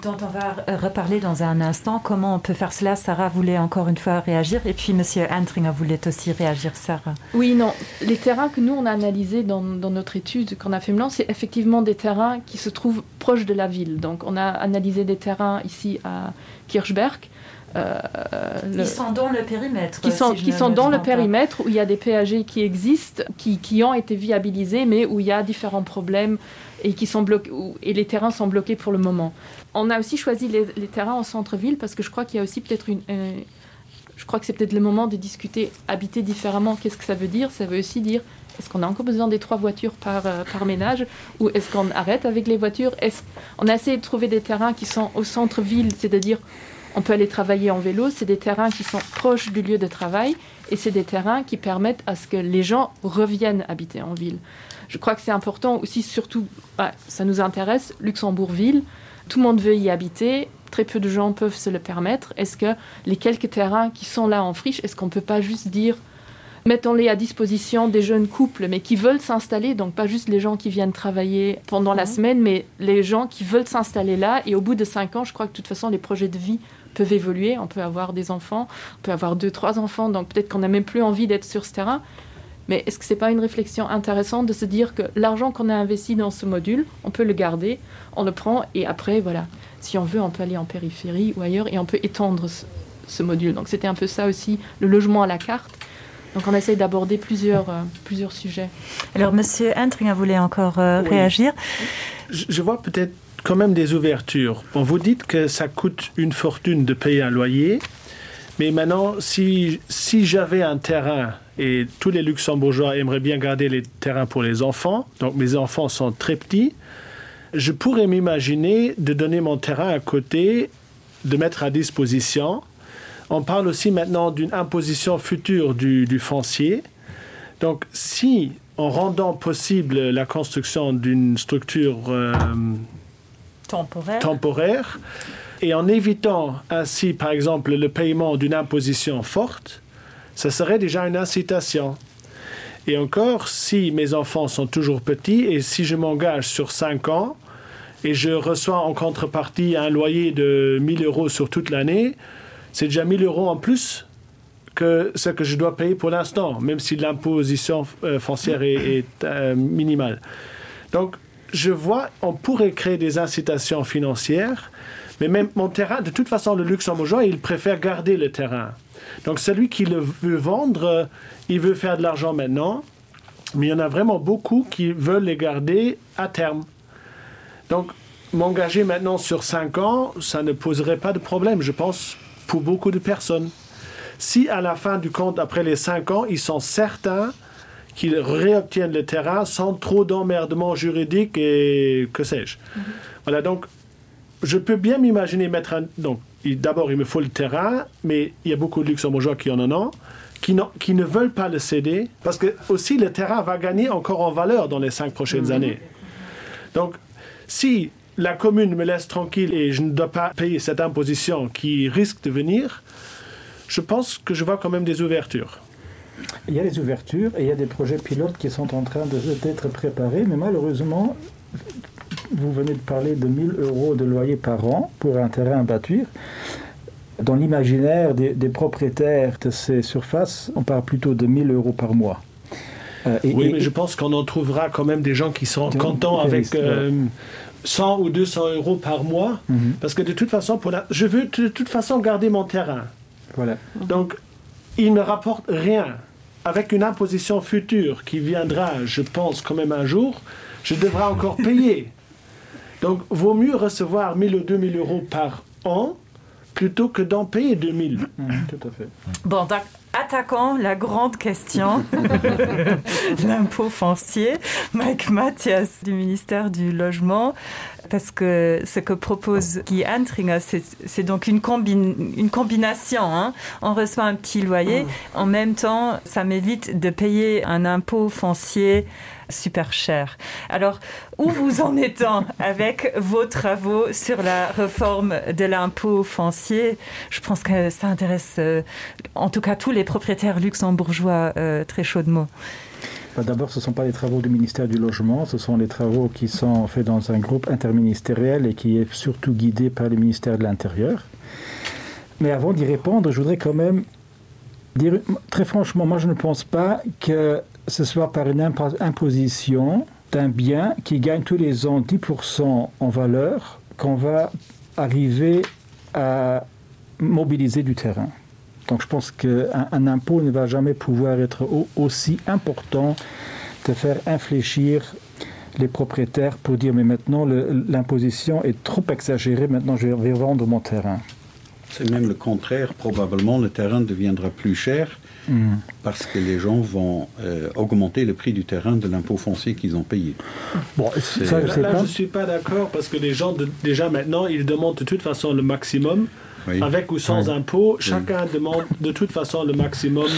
Dont on va reparler dans un instant. Comment on peut faire cela Sarah voulait encore une fois réagir et puis Monsieur Antringer voulait aussi réagir Sarah. Oui non les terrains que nous on a analysé dans, dans notre étude qu'on a fait blanc c'est effectivement des terrains qui se trouvent proches de la ville. Donc on a analysé des terrains ici à Kirchberg. Euh, le, qui sont dans le périmètre qui sont, si qui sont dans le périmètre où il y a des PAG qui existent qui, qui ont été viabilisés mais où il y a différents problèmes et qui sont bloqués et les terrains sont bloqués pour le moment. On a aussi choisi les, les terrains en centre-ville parce que je crois qu'il y a aussi peut-être une euh, je crois que c'est peut-être le moment de discuter habiter différemment qu'est-ce que ça veut dire ça veut aussi dire est-ce qu'on a encore besoin des trois voitures par, euh, par ménage ou est-ce qu'on arrête avec les voitures est-ce on a essayé de trouver des terrains qui sont au centre-ville c'est-à-dire on peut aller travailler en vélo c'est des terrains qui sont proches du lieu de travail et c'est des terrains qui permettent à ce que les gens reviennent habiter en ville je crois que c'est important aussi surtout bah, ça nous intéresse luxembourgville tout le monde veut y habiter très peu de gens peuvent se le permettre est-ce que les quelques terrains qui sont là en friche est-ce qu'on peut pas juste dire mettons-les à disposition des jeunes couples mais qui veulent s'installer donc pas juste les gens qui viennent travailler pendant mmh. la semaine mais les gens qui veulent s'installer là et au bout de cinq ans je crois que de toute façon les projets de vie peuvent évoluer on peut avoir des enfants on peut avoir deux trois enfants donc peut-être qu'on n'a même plus envie d'être sur ce terrain mais est-ce que c'est pas une réflexion intéressante de se dire que l'argent qu'on a investi dans ce module on peut le garder on le prend et après voilà si on veut on peut aller en périphérie ou ailleurs et on peut étendre ce, ce module donc c'était un peu ça aussi le logement à la carte donc on essaye d'aborder plusieurs euh, plusieurs sujets alors monsieur Entringer voulait encore euh, oui. réagir je, je vois peut-être quand même des ouvertures bon vous dites que ça coûte une fortune de payer un loyer mais maintenant si si j'avais un terrain et tous les luxembourgeois aimeraient bien garder les terrains pour les enfants donc mes enfants sont très petits je pourrais m'imaginer de donner mon terrain à côté de mettre à disposition on parle aussi maintenant d'une imposition future du, du foncier donc si en rendant possible la construction d'une structure euh, temporaire. temporaire et en évitant ainsi par exemple le paiement d'une imposition forte ça serait déjà une incitation et encore si mes enfants sont toujours petits et si je m'engage sur cinq ans et je reçois en contrepartie un loyer de 1000 euros sur toute l'année c'est déjà 1000 euros en plus que ce que je dois payer pour l'instant même si l'imposition euh, foncière est, est euh, minimale donc je vois on pourrait créer des incitations financières. Mais même mon terrain, de toute façon, le luxembourgeois, il préfère garder le terrain. Donc celui qui le veut vendre, il veut faire de l'argent maintenant, mais il y en a vraiment beaucoup qui veulent les garder à terme. Donc m'engager maintenant sur cinq ans, ça ne poserait pas de problème, je pense, pour beaucoup de personnes. Si à la fin du compte, après les cinq ans, ils sont certains qu'ils réobtiennent le terrain sans trop d'emmerdement juridique et que sais-je. Mm -hmm. Voilà donc je peux bien m'imaginer mettre un donc d'abord il me faut le terrain, mais il y a beaucoup de luxembourgeois qui en en ont qui, qui ne veulent pas le céder parce que aussi le terrain va gagner encore en valeur dans les cinq prochaines mm -hmm. années. Donc si la commune me laisse tranquille et je ne dois pas payer cette imposition qui risque de venir, je pense que je vois quand même des ouvertures. Il y a des ouvertures et il y a des projets pilotes qui sont en train d'être préparés, mais malheureusement, vous venez de parler de 1000 euros de loyer par an pour un terrain à bâtir. Dans l'imaginaire des, des propriétaires de ces surfaces, on parle plutôt de 1000 euros par mois. Euh, et, oui, et, mais je pense qu'on en trouvera quand même des gens qui sont contents avec euh, 100 ou 200 euros par mois mm -hmm. parce que de toute façon pour la, je veux de toute façon garder mon terrain. Voilà. Donc il ne rapporte rien. Avec une imposition future qui viendra, je pense quand même un jour, je devrais encore payer. Donc vaut mieux recevoir 1000 ou 2000 euros par an plutôt que d'en payer 2000. Mmh, tout à fait. Bon, attaquons la grande question l'impôt foncier Mike Mathias du ministère du logement parce que ce que propose Guy Antringer c'est donc une combine une combination hein. on reçoit un petit loyer mmh. en même temps ça m'évite de payer un impôt foncier super cher. Alors où vous en étant avec vos travaux sur la réforme de l'impôt foncier, je pense que ça intéresse euh, en tout cas tous les propriétaires luxembourgeois euh, très chaudement. D'abord, ce ne sont pas les travaux du ministère du logement, ce sont les travaux qui sont faits dans un groupe interministériel et qui est surtout guidé par le ministère de l'Intérieur. Mais avant d'y répondre, je voudrais quand même dire très franchement, moi je ne pense pas que ce soit par une imposition d'un bien qui gagne tous les ans 10% en valeur qu'on va arriver à mobiliser du terrain. Donc je pense qu'un un impôt ne va jamais pouvoir être au, aussi important de faire infléchir les propriétaires pour dire mais maintenant l'imposition est trop exagérée, maintenant je vais vendre mon terrain. C'est même le contraire, probablement le terrain deviendra plus cher mmh. parce que les gens vont euh, augmenter le prix du terrain de l'impôt foncier qu'ils ont payé. Bon, ça, je, là, là, je suis pas d'accord parce que les gens de, déjà maintenant ils demandent de toute façon le maximum oui. avec ou sans oui. impôt, chacun oui. demande de toute façon le maximum.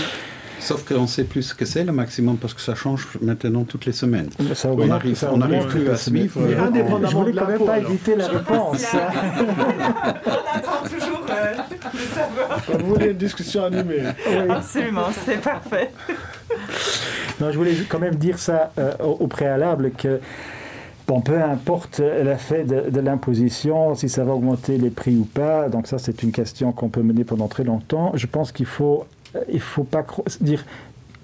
Sauf qu'on sait plus ce que c'est le maximum parce que ça change maintenant toutes les semaines. Ça on n'arrive on arrive plus à suivre. Mais euh, indépendamment je voulais quand même pas éviter la réponse. on attend toujours euh, de savoir. Vous voulez une discussion animée. Oui. Absolument, c'est parfait. Non, je voulais quand même dire ça euh, au, au préalable que Bon, peu importe l'effet de, de l'imposition, si ça va augmenter les prix ou pas, donc ça c'est une question qu'on peut mener pendant très longtemps. Je pense qu'il faut il faut pas dire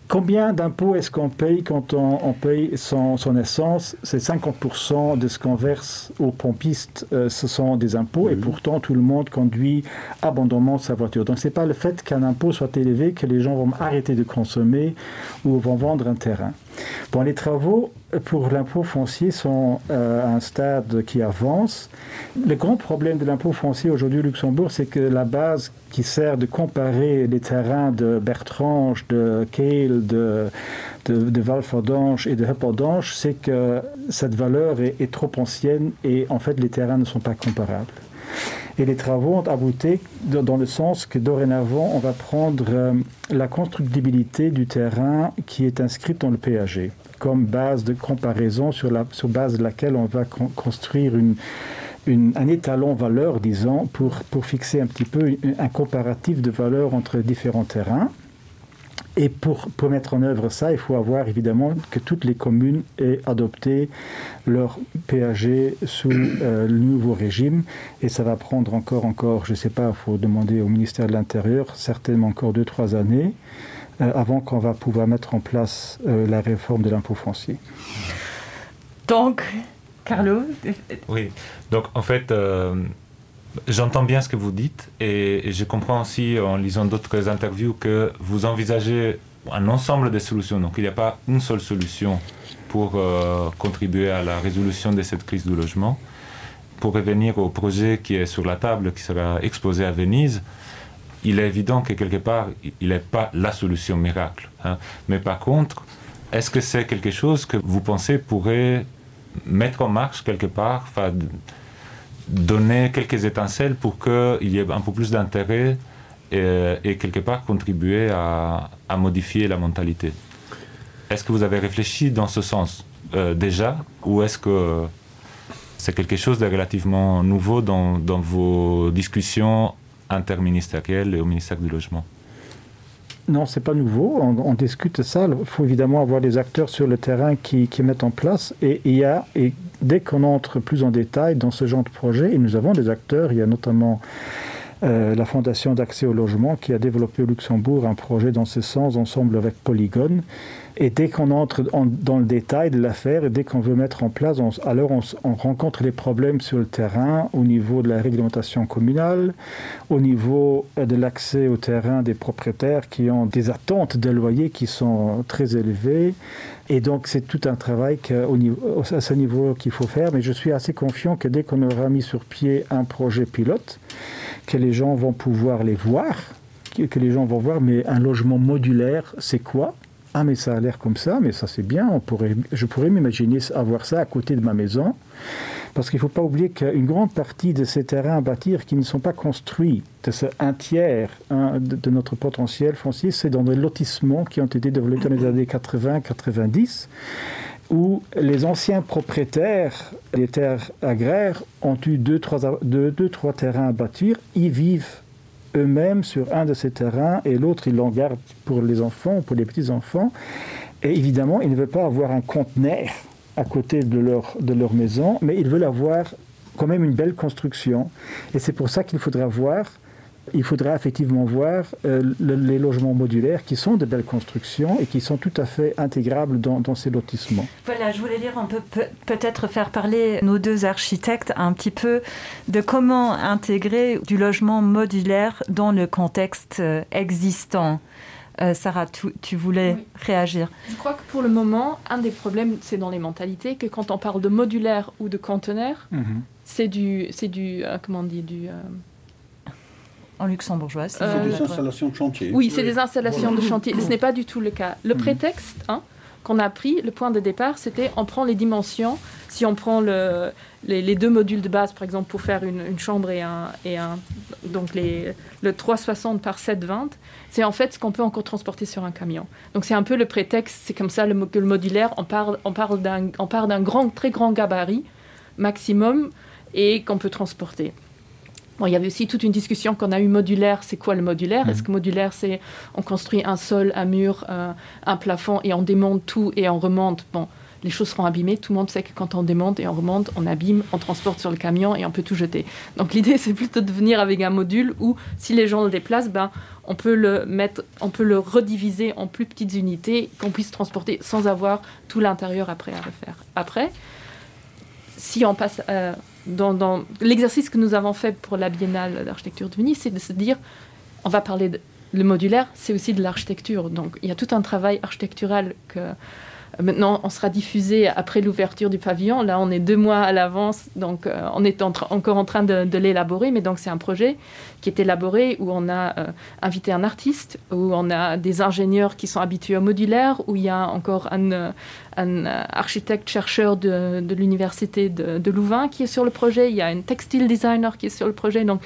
combien d'impôts est-ce qu'on paye quand on, on paye son, son essence c'est 50 de ce qu'on verse aux pompistes euh, ce sont des impôts mmh. et pourtant tout le monde conduit abondamment sa voiture donc c'est pas le fait qu'un impôt soit élevé que les gens vont arrêter de consommer ou vont vendre un terrain bon les travaux pour l'impôt foncier sont euh, à un stade qui avance le grand problème de l'impôt foncier aujourd'hui au luxembourg c'est que la base qui sert de comparer les terrains de Bertrange, de Kehl, de, de, de Valfordange et de Heppordange, c'est que cette valeur est, est trop ancienne et en fait les terrains ne sont pas comparables. Et les travaux ont abouti dans le sens que dorénavant on va prendre euh, la constructibilité du terrain qui est inscrite dans le PAG comme base de comparaison sur, la, sur base de laquelle on va con construire une, une, un étalon valeur, disons, pour, pour fixer un petit peu un comparatif de valeur entre différents terrains. Et pour, pour mettre en œuvre ça, il faut avoir évidemment que toutes les communes aient adopté leur PAG sous euh, le nouveau régime. Et ça va prendre encore, encore, je ne sais pas, il faut demander au ministère de l'Intérieur, certainement encore deux, trois années, euh, avant qu'on va pouvoir mettre en place euh, la réforme de l'impôt foncier. Donc, Carlo Oui, donc en fait, euh, J'entends bien ce que vous dites et, et je comprends aussi en lisant d'autres interviews que vous envisagez un ensemble de solutions. Donc il n'y a pas une seule solution pour euh, contribuer à la résolution de cette crise du logement. Pour revenir au projet qui est sur la table, qui sera exposé à Venise, il est évident que quelque part, il n'est pas la solution miracle. Hein. Mais par contre, est-ce que c'est quelque chose que vous pensez pourrait mettre en marche quelque part, donner quelques étincelles pour qu'il y ait un peu plus d'intérêt et, et quelque part contribuer à, à modifier la mentalité. Est-ce que vous avez réfléchi dans ce sens euh, déjà ou est-ce que c'est quelque chose de relativement nouveau dans, dans vos discussions interministérielles et au ministère du logement? Non, c'est pas nouveau. On, on discute ça. Il faut évidemment avoir des acteurs sur le terrain qui, qui mettent en place. Et il y a, et dès qu'on entre plus en détail dans ce genre de projet, et nous avons des acteurs, il y a notamment euh, la Fondation d'accès au logement qui a développé au Luxembourg un projet dans ce sens ensemble avec Polygone. Et dès qu'on entre en, dans le détail de l'affaire et dès qu'on veut mettre en place, on, alors on, on rencontre les problèmes sur le terrain au niveau de la réglementation communale, au niveau euh, de l'accès au terrain des propriétaires qui ont des attentes de loyers qui sont très élevées. Et donc c'est tout un travail que, au niveau, à ce niveau qu'il faut faire. Mais je suis assez confiant que dès qu'on aura mis sur pied un projet pilote, que les gens vont pouvoir les voir, que les gens vont voir, mais un logement modulaire, c'est quoi? Ah mais ça a l'air comme ça, mais ça c'est bien, on pourrait, je pourrais m'imaginer avoir ça à côté de ma maison. Parce qu'il ne faut pas oublier qu'une grande partie de ces terrains à bâtir qui ne sont pas construits, de ce un tiers hein, de, de notre potentiel foncier, c'est dans des lotissements qui ont été développés dans les années 80-90 où les anciens propriétaires des terres agraires ont eu deux trois, deux, deux, trois terrains à bâtir, ils vivent eux-mêmes sur un de ces terrains et l'autre ils l'en gardent pour les enfants, pour les petits-enfants. Et évidemment, ils ne veulent pas avoir un conteneur à côté de leur, de leur maison, mais ils veulent avoir quand même une belle construction. Et c'est pour ça qu'il faudra voir il faudra effectivement voir euh, le, les logements modulaires qui sont de belles constructions et qui sont tout à fait intégrables dans, dans ces lotissements. Voilà, je voulais dire on peut peut-être faire parler nos deux architectes un petit peu de comment intégrer du logement modulaire dans le contexte euh, existant. Euh, Sarah, tu, tu voulais oui. réagir. Je crois que pour le moment, un des problèmes, c'est dans les mentalités que quand on parle de modulaire ou de conteneur, mm -hmm. c'est du, c'est du euh, comment on dit du euh, en luxembourgeois. C'est euh, des installations de chantier. Oui, c'est oui. des installations de chantier. Ce n'est pas du tout le cas. Le mmh. prétexte hein, qu'on a pris, le point de départ, c'était on prend les dimensions. Si on prend le, les, les deux modules de base, par exemple, pour faire une, une chambre et un, et un donc les, le 360 par 720, c'est en fait ce qu'on peut encore transporter sur un camion. Donc c'est un peu le prétexte, c'est comme ça le, que le modulaire, on parle, on parle d'un grand, très grand gabarit maximum et qu'on peut transporter. Bon, il y avait aussi toute une discussion qu'on a eu modulaire, c'est quoi le modulaire mmh. Est-ce que modulaire c'est on construit un sol, un mur, euh, un plafond et on démonte tout et on remonte bon, les choses seront abîmées, tout le monde sait que quand on démonte et on remonte, on abîme, on transporte sur le camion et on peut tout jeter. Donc l'idée c'est plutôt de venir avec un module où si les gens le déplacent, ben, on peut le mettre, on peut le rediviser en plus petites unités qu'on puisse transporter sans avoir tout l'intérieur après à refaire. Après, si on passe euh, dans, dans l'exercice que nous avons fait pour la biennale d'architecture de Venise, c'est de se dire on va parler de, le modulaire, c'est aussi de l'architecture. Donc il y a tout un travail architectural que maintenant on sera diffusé après l'ouverture du pavillon. Là on est deux mois à l'avance, donc euh, on est en encore en train de, de l'élaborer, mais donc c'est un projet qui est élaboré où on a euh, invité un artiste, où on a des ingénieurs qui sont habitués au modulaire, où il y a encore un, euh, un euh, architecte chercheur de, de l'université de, de Louvain qui est sur le projet, il y a un textile designer qui est sur le projet. Donc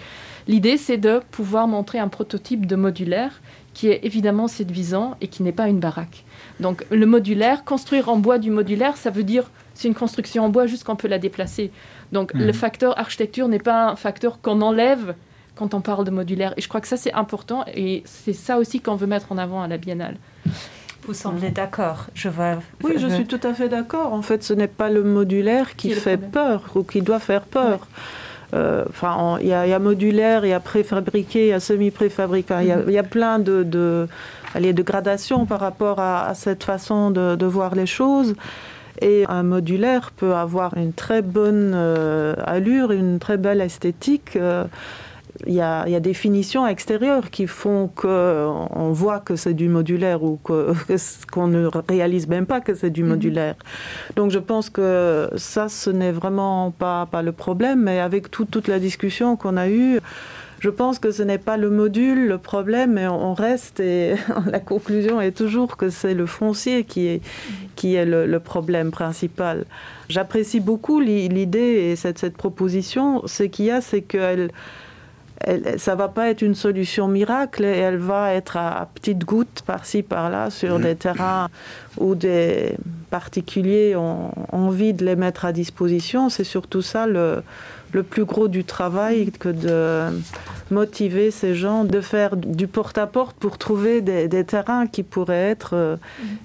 l'idée c'est de pouvoir montrer un prototype de modulaire qui est évidemment séduisant et qui n'est pas une baraque. Donc le modulaire, construire en bois du modulaire, ça veut dire c'est une construction en bois juste qu'on peut la déplacer. Donc mmh. le facteur architecture n'est pas un facteur qu'on enlève quand on parle de modulaire. Et je crois que ça c'est important et c'est ça aussi qu'on veut mettre en avant à la biennale. Vous semblez d'accord, je vois. Oui, je suis tout à fait d'accord. En fait, ce n'est pas le modulaire qui, qui fait peur ou qui doit faire peur. Ouais. Euh, enfin il y, y a modulaire, il y a préfabriqué, il y a semi-préfabriqué, il mm -hmm. y, y a plein de, de, allez, de gradations par rapport à, à cette façon de, de voir les choses. Et un modulaire peut avoir une très bonne euh, allure, une très belle esthétique. Euh, il y a, y a des finitions extérieures qui font qu'on voit que c'est du modulaire ou qu'on que, qu'on ne réalise même pas que c'est du mhm. modulaire. Donc je pense que ça ce n'est vraiment pas, pas le problème, mais avec tout, toute la discussion qu'on a eue, je pense que ce n'est pas le module le problème, mais on reste et la conclusion est toujours que c'est le foncier qui est, qui est le, le problème principal. J'apprécie beaucoup l'idée et cette, cette proposition. Ce qu'il y a, c'est qu'elle elle, ça va pas être une solution miracle et elle va être à, à petites gouttes par-ci par-là sur mmh. des terrains où des particuliers ont envie de les mettre à disposition. C'est surtout ça le, le plus gros du travail que de motiver ces gens de faire du porte-à-porte -porte pour trouver des, des terrains qui pourraient être euh,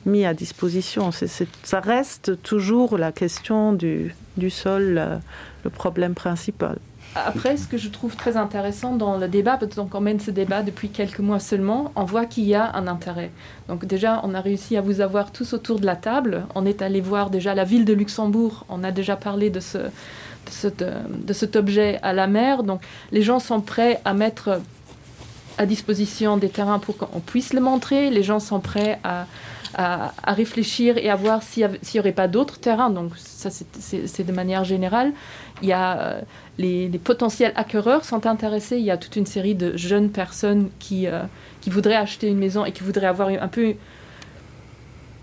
mis à disposition. C'est, c'est, ça reste toujours la question du, du sol, euh, le problème principal. Après, ce que je trouve très intéressant dans le débat, donc on mène ce débat depuis quelques mois seulement, on voit qu'il y a un intérêt. Donc déjà, on a réussi à vous avoir tous autour de la table. On est allé voir déjà la ville de Luxembourg, on a déjà parlé de, ce, de, cette, de cet objet à la mer. Donc les gens sont prêts à mettre à disposition des terrains pour qu'on puisse le montrer. Les gens sont prêts à, à, à réfléchir et à voir s'il n'y aurait pas d'autres terrains. Donc ça, c'est de manière générale. Il y a euh, les, les potentiels acquéreurs sont intéressés. Il y a toute une série de jeunes personnes qui, euh, qui voudraient acheter une maison et qui voudraient avoir un peu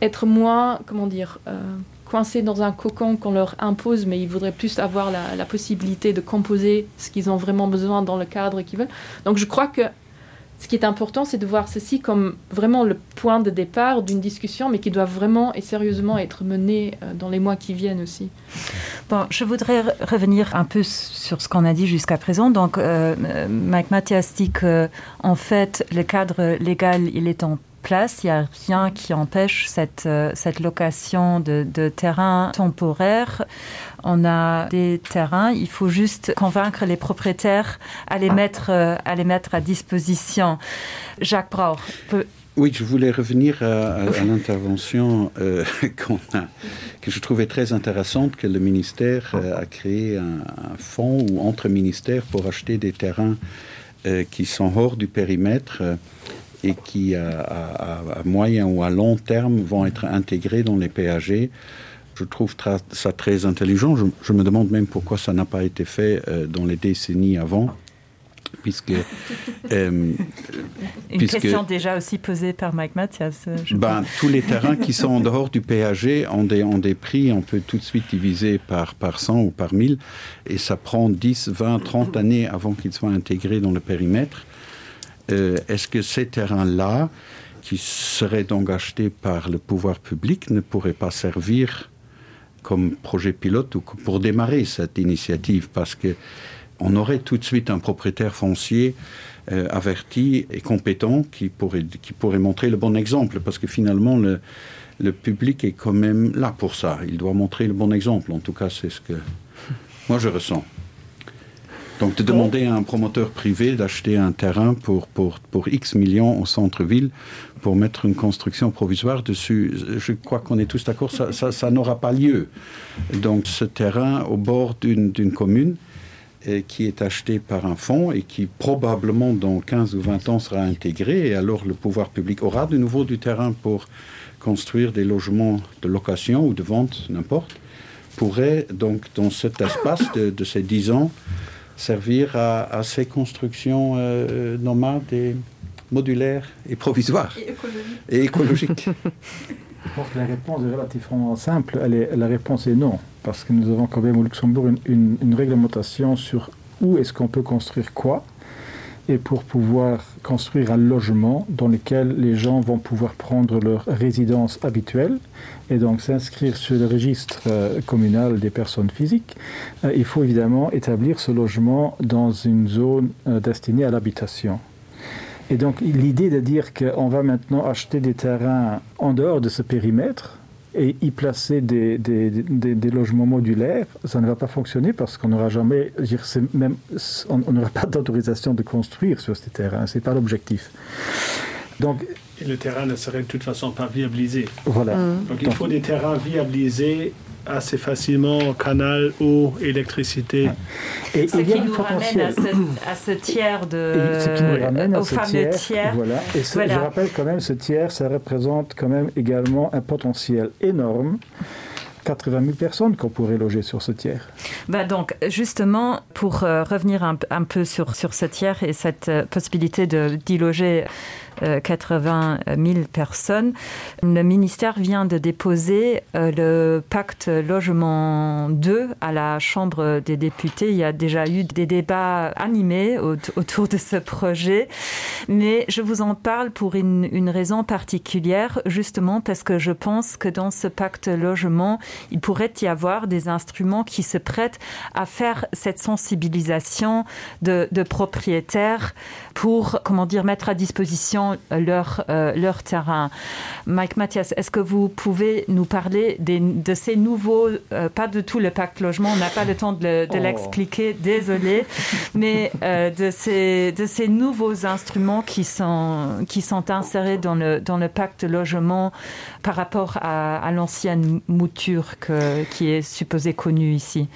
être moins comment dire euh, coincés dans un cocon qu'on leur impose, mais ils voudraient plus avoir la, la possibilité de composer ce qu'ils ont vraiment besoin dans le cadre qu'ils veulent. Donc je crois que ce qui est important, c'est de voir ceci comme vraiment le point de départ d'une discussion, mais qui doit vraiment et sérieusement être menée euh, dans les mois qui viennent aussi. Bon, je voudrais revenir un peu sur ce qu'on a dit jusqu'à présent. Donc, euh, Mike Mathias dit que, en fait, le cadre légal, il est en place. Il n'y a rien qui empêche cette, euh, cette location de, de terrain temporaire. On a des terrains, il faut juste convaincre les propriétaires à les mettre, euh, à, les mettre à disposition. Jacques Brauer. Peut... Oui, je voulais revenir à, à, à l'intervention euh, qu'on a, que je trouvais très intéressante que le ministère euh, a créé un, un fonds ou entre ministères pour acheter des terrains euh, qui sont hors du périmètre. Euh, et qui à, à, à moyen ou à long terme vont être intégrés dans les PAG. Je trouve ça très intelligent. Je, je me demande même pourquoi ça n'a pas été fait euh, dans les décennies avant puisque euh, une puisque, question déjà aussi posée par Mike Mathias euh, ben, tous les terrains qui sont en dehors du PAG ont des, ont des prix on peut tout de suite diviser par par 100 ou par 1000 et ça prend 10 20 30 années avant qu'ils soient intégrés dans le périmètre et euh, est-ce que ces terrains-là, qui seraient donc achetés par le pouvoir public, ne pourraient pas servir comme projet pilote ou pour démarrer cette initiative parce que on aurait tout de suite un propriétaire foncier euh, averti et compétent qui pourrait, qui pourrait montrer le bon exemple parce que finalement le, le public est quand même là pour ça. Il doit montrer le bon exemple. En tout cas, c'est ce que moi je ressens. Donc de demander à un promoteur privé d'acheter un terrain pour, pour, pour X millions au centre-ville pour mettre une construction provisoire dessus, je crois qu'on est tous d'accord, ça, ça, ça n'aura pas lieu. Donc ce terrain au bord d'une commune et qui est acheté par un fonds et qui probablement dans 15 ou 20 ans sera intégré et alors le pouvoir public aura de nouveau du terrain pour construire des logements de location ou de vente, n'importe, pourrait donc dans cet espace de, de ces 10 ans, servir à, à ces constructions euh, nomades et modulaires et provisoires et écologiques. Et écologiques. Je pense que la réponse est relativement simple. Elle est, la réponse est non, parce que nous avons quand même au Luxembourg une, une, une réglementation sur où est-ce qu'on peut construire quoi et pour pouvoir construire un logement dans lequel les gens vont pouvoir prendre leur résidence habituelle et donc s'inscrire sur le registre euh, communal des personnes physiques, euh, il faut évidemment établir ce logement dans une zone euh, destinée à l'habitation. Et donc l'idée de dire qu'on va maintenant acheter des terrains en dehors de ce périmètre, et y placer des, des, des, des logements modulaires, ça ne va pas fonctionner parce qu'on n'aura jamais dire, même on n'aura pas d'autorisation de construire sur ces terrains, ce n'est pas l'objectif. Donc. Et le terrain ne serait de toute façon pas viabilisé. Voilà. Mmh. Donc il faut des terrains viabilisés assez facilement canal eau électricité ouais. et ce il y a du potentiel à ce, à ce tiers de et ce qui nous ramène à au ce fameux tiers, tiers. Voilà. Et ce, voilà. je rappelle quand même ce tiers ça représente quand même également un potentiel énorme 80 000 personnes qu'on pourrait loger sur ce tiers. Bah donc justement pour euh, revenir un, un peu sur, sur ce tiers et cette euh, possibilité d'y loger 80 euh, 000 personnes, le ministère vient de déposer euh, le pacte logement 2 à la chambre des députés. Il y a déjà eu des débats animés autour de ce projet. Mais je vous en parle pour une, une raison particulière, justement parce que je pense que dans ce pacte logement, il pourrait y avoir des instruments qui se prêtent à faire cette sensibilisation de, de propriétaires pour comment dire mettre à disposition leur, euh, leur terrain. Mike Mathias, est-ce que vous pouvez nous parler des, de ces nouveaux euh, pas de tout le pacte logement, on n'a pas le temps de oh. l'expliquer, désolé, mais euh, de, ces, de ces nouveaux instruments qui sont, qui sont insérés dans le, dans le pacte logement par rapport à, à l'ancienne mouture que, qui est supposée connue ici.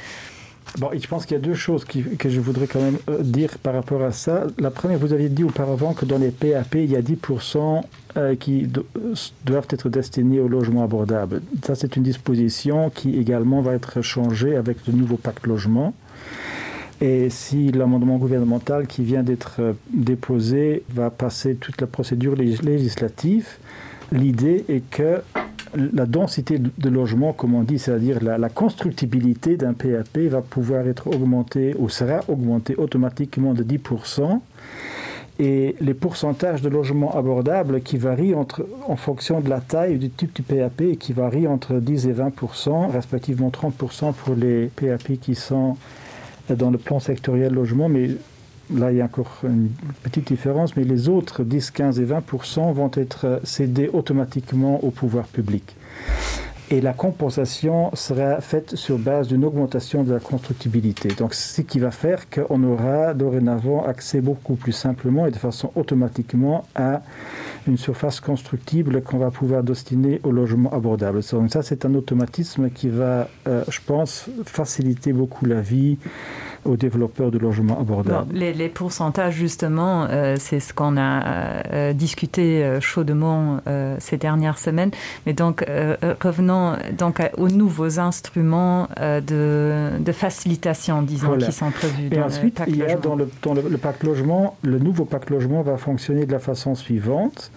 Bon, je pense qu'il y a deux choses qui, que je voudrais quand même euh, dire par rapport à ça. La première, vous aviez dit auparavant que dans les PAP, il y a 10% euh, qui euh, doivent être destinés au logement abordable. Ça, c'est une disposition qui également va être changée avec le nouveau pacte logement. Et si l'amendement gouvernemental qui vient d'être déposé va passer toute la procédure législative, l'idée est que la densité de logement, comme on dit, c'est-à-dire la, la constructibilité d'un PAP va pouvoir être augmentée ou sera augmentée automatiquement de 10%. Et les pourcentages de logements abordables qui varient entre, en fonction de la taille du type du PAP et qui varient entre 10 et 20%, respectivement 30% pour les PAP qui sont dans le plan sectoriel logement, mais là il y a encore une petite différence, mais les autres 10, 15 et 20% vont être cédés automatiquement au pouvoir public. Et la compensation sera faite sur base d'une augmentation de la constructibilité. Donc ce qui va faire qu'on aura dorénavant accès beaucoup plus simplement et de façon automatiquement à une surface constructible qu'on va pouvoir destiner au logement abordable. Donc ça c'est un automatisme qui va, euh, je pense, faciliter beaucoup la vie aux développeurs de logements abordables. Bon, les, les pourcentages justement, euh, c'est ce qu'on a euh, discuté euh, chaudement euh, ces dernières semaines. Mais donc euh, euh revenons donc à, aux nouveaux instruments euh, de, de facilitation disons voilà. qui sont prévus. Et ensuite, il y a dans, le, dans le, le pacte logement, le nouveau pacte logement va fonctionner de la façon suivante.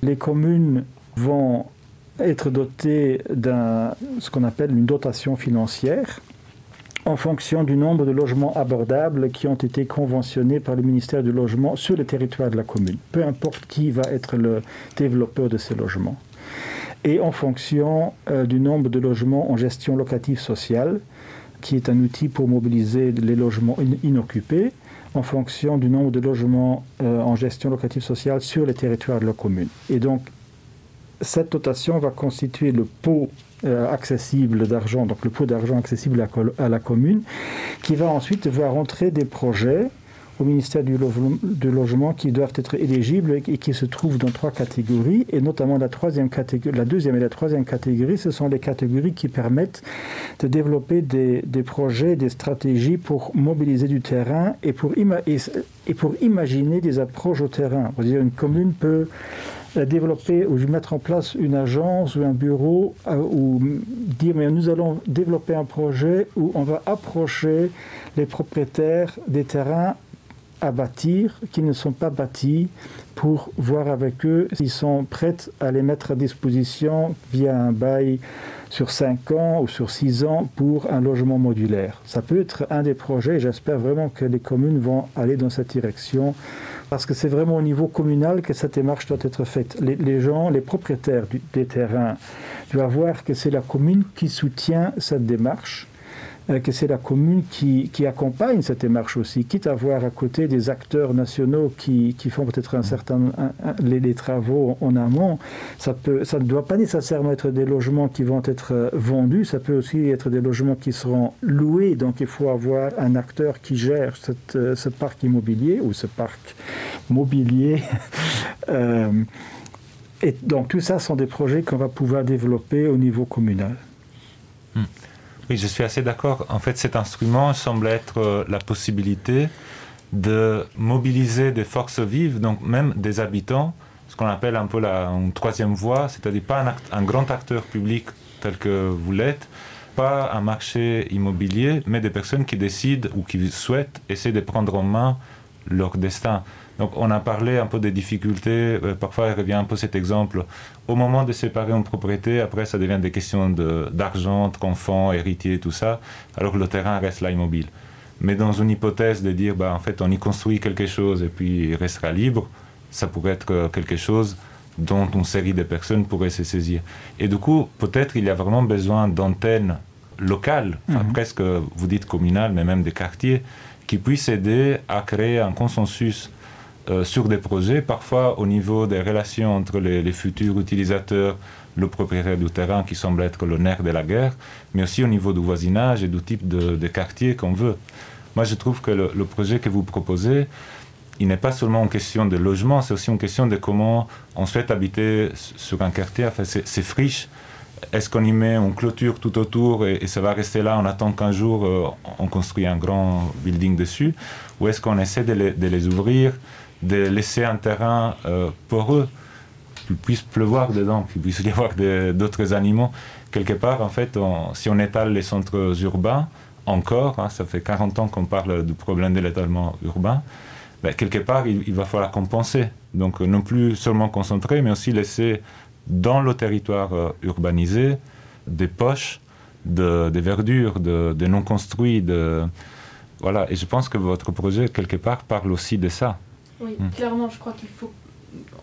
Les communes vont être dotées d'un ce qu'on appelle une dotation financière en fonction du nombre de logements abordables qui ont été conventionnés par le ministère du logement sur le territoire de la commune, peu importe qui va être le développeur de ces logements. Et en fonction euh, du nombre de logements en gestion locative sociale, qui est un outil pour mobiliser les logements in inoccupés, en fonction du nombre de logements euh, en gestion locative sociale sur les territoires de la commune. Et donc, cette dotation va constituer le pot euh, accessible d'argent, donc le pot d'argent accessible à, à la commune, qui va ensuite voir entrer des projets au ministère du, lo du logement qui doivent être éligibles et qui se trouvent dans trois catégories et notamment la troisième catégorie la deuxième et la troisième catégorie ce sont les catégories qui permettent de développer des, des projets des stratégies pour mobiliser du terrain et pour ima et, et pour imaginer des approches au terrain dire une commune peut euh, développer ou mettre en place une agence ou un bureau euh, ou dire mais nous allons développer un projet où on va approcher les propriétaires des terrains à bâtir qui ne sont pas bâtis pour voir avec eux s'ils sont prêts à les mettre à disposition via un bail sur 5 ans ou sur 6 ans pour un logement modulaire. Ça peut être un des projets j'espère vraiment que les communes vont aller dans cette direction parce que c'est vraiment au niveau communal que cette démarche doit être faite. Les, les gens, les propriétaires du, des terrains doivent voir que c'est la commune qui soutient cette démarche Euh, que c'est la commune qui, qui accompagne cette démarche aussi, quitte à voir à côté des acteurs nationaux qui, qui font peut-être un certain un, un, les, les travaux en amont, ça, peut, ça ne doit pas nécessairement être des logements qui vont être euh, vendus, ça peut aussi être des logements qui seront loués, donc il faut avoir un acteur qui gère cette, euh, ce parc immobilier ou ce parc mobilier. euh, Et donc tout ça sont des projets qu'on va pouvoir développer au niveau communal. Hmm. Oui, je suis assez d'accord. En fait, cet instrument semble être euh, la possibilité de mobiliser des forces vives, donc même des habitants, ce qu'on appelle un peu la une troisième voie, c'est-à-dire pas un, act, un grand acteur public tel que vous l'êtes, pas un marché immobilier, mais des personnes qui décident ou qui souhaitent essayer de prendre en main leur destin. Donc on a parlé un peu des difficultés, euh, parfois il revient un peu cet exemple. Au moment de séparer une propriété, après ça devient des questions d'argent, entre enfants, héritiers, tout ça, alors que le terrain reste là immobile. Mais dans une hypothèse de dire bah, en fait on y construit quelque chose et puis il restera libre, ça pourrait être euh, quelque chose dont une série de personnes pourraient se saisir. Et du coup, peut-être il y a vraiment besoin d'antennes locales, mm -hmm. presque vous dites communales, mais même des quartiers, qui puissent aider à créer un consensus euh, sur des projets, parfois au niveau des relations entre les, les futurs utilisateurs, le propriétaire du terrain qui semble être le nerf de la guerre, mais aussi au niveau du voisinage et du type de, de quartier qu'on veut. Moi, je trouve que le, le projet que vous proposez, il n'est pas seulement une question de logement, c'est aussi une question de comment on souhaite habiter sur un quartier, enfin, c'est friche. Est-ce qu'on y met une clôture tout autour et, et ça va rester là, on attend qu'un jour euh, on construit un grand building dessus ou est-ce qu'on essaie de les, de les ouvrir, de laisser un terrain euh, poreux qu'il puisse pleuvoir dedans, qu'il puisse y avoir d'autres animaux quelque part en fait on, si on étale les centres urbains encore hein, ça fait 40 ans qu'on parle du problème de l'étalement urbain ben, quelque part il, il va falloir compenser donc euh, non plus seulement concentrer mais aussi laisser dans le territoire euh, urbanisé des poches de, de verdure de, de non construits de voilà et je pense que votre projet quelque part parle aussi de ça oui mmh. clairement je crois qu'il faut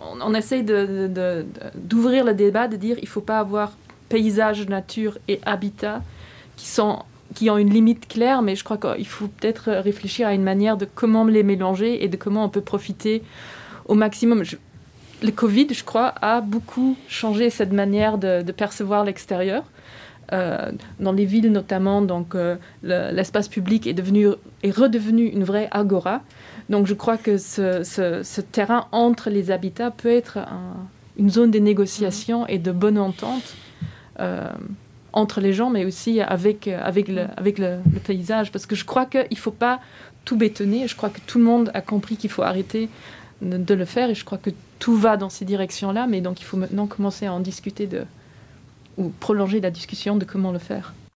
on, on essaye d'ouvrir le débat de dire il faut pas avoir paysage nature et habitat qui sont qui ont une limite claire mais je crois qu'il faut peut-être réfléchir à une manière de comment les mélanger et de comment on peut profiter au maximum je, le covid je crois a beaucoup changé cette manière de, de percevoir l'extérieur euh, dans les villes notamment donc euh, l'espace le, public est devenu est redevenu une vraie agora donc je crois que ce, ce, ce terrain entre les habitats peut être un, une zone des négociations et de bonne entente euh, entre les gens mais aussi avec avec le, avec le, le paysage parce que je crois qu'il ne faut pas tout bétonner je crois que tout le monde a compris qu'il faut arrêter de, de le faire et je crois que tout va dans ces directions là mais donc il faut maintenant commencer à en discuter de ou prolonger la discussion de comment le faire.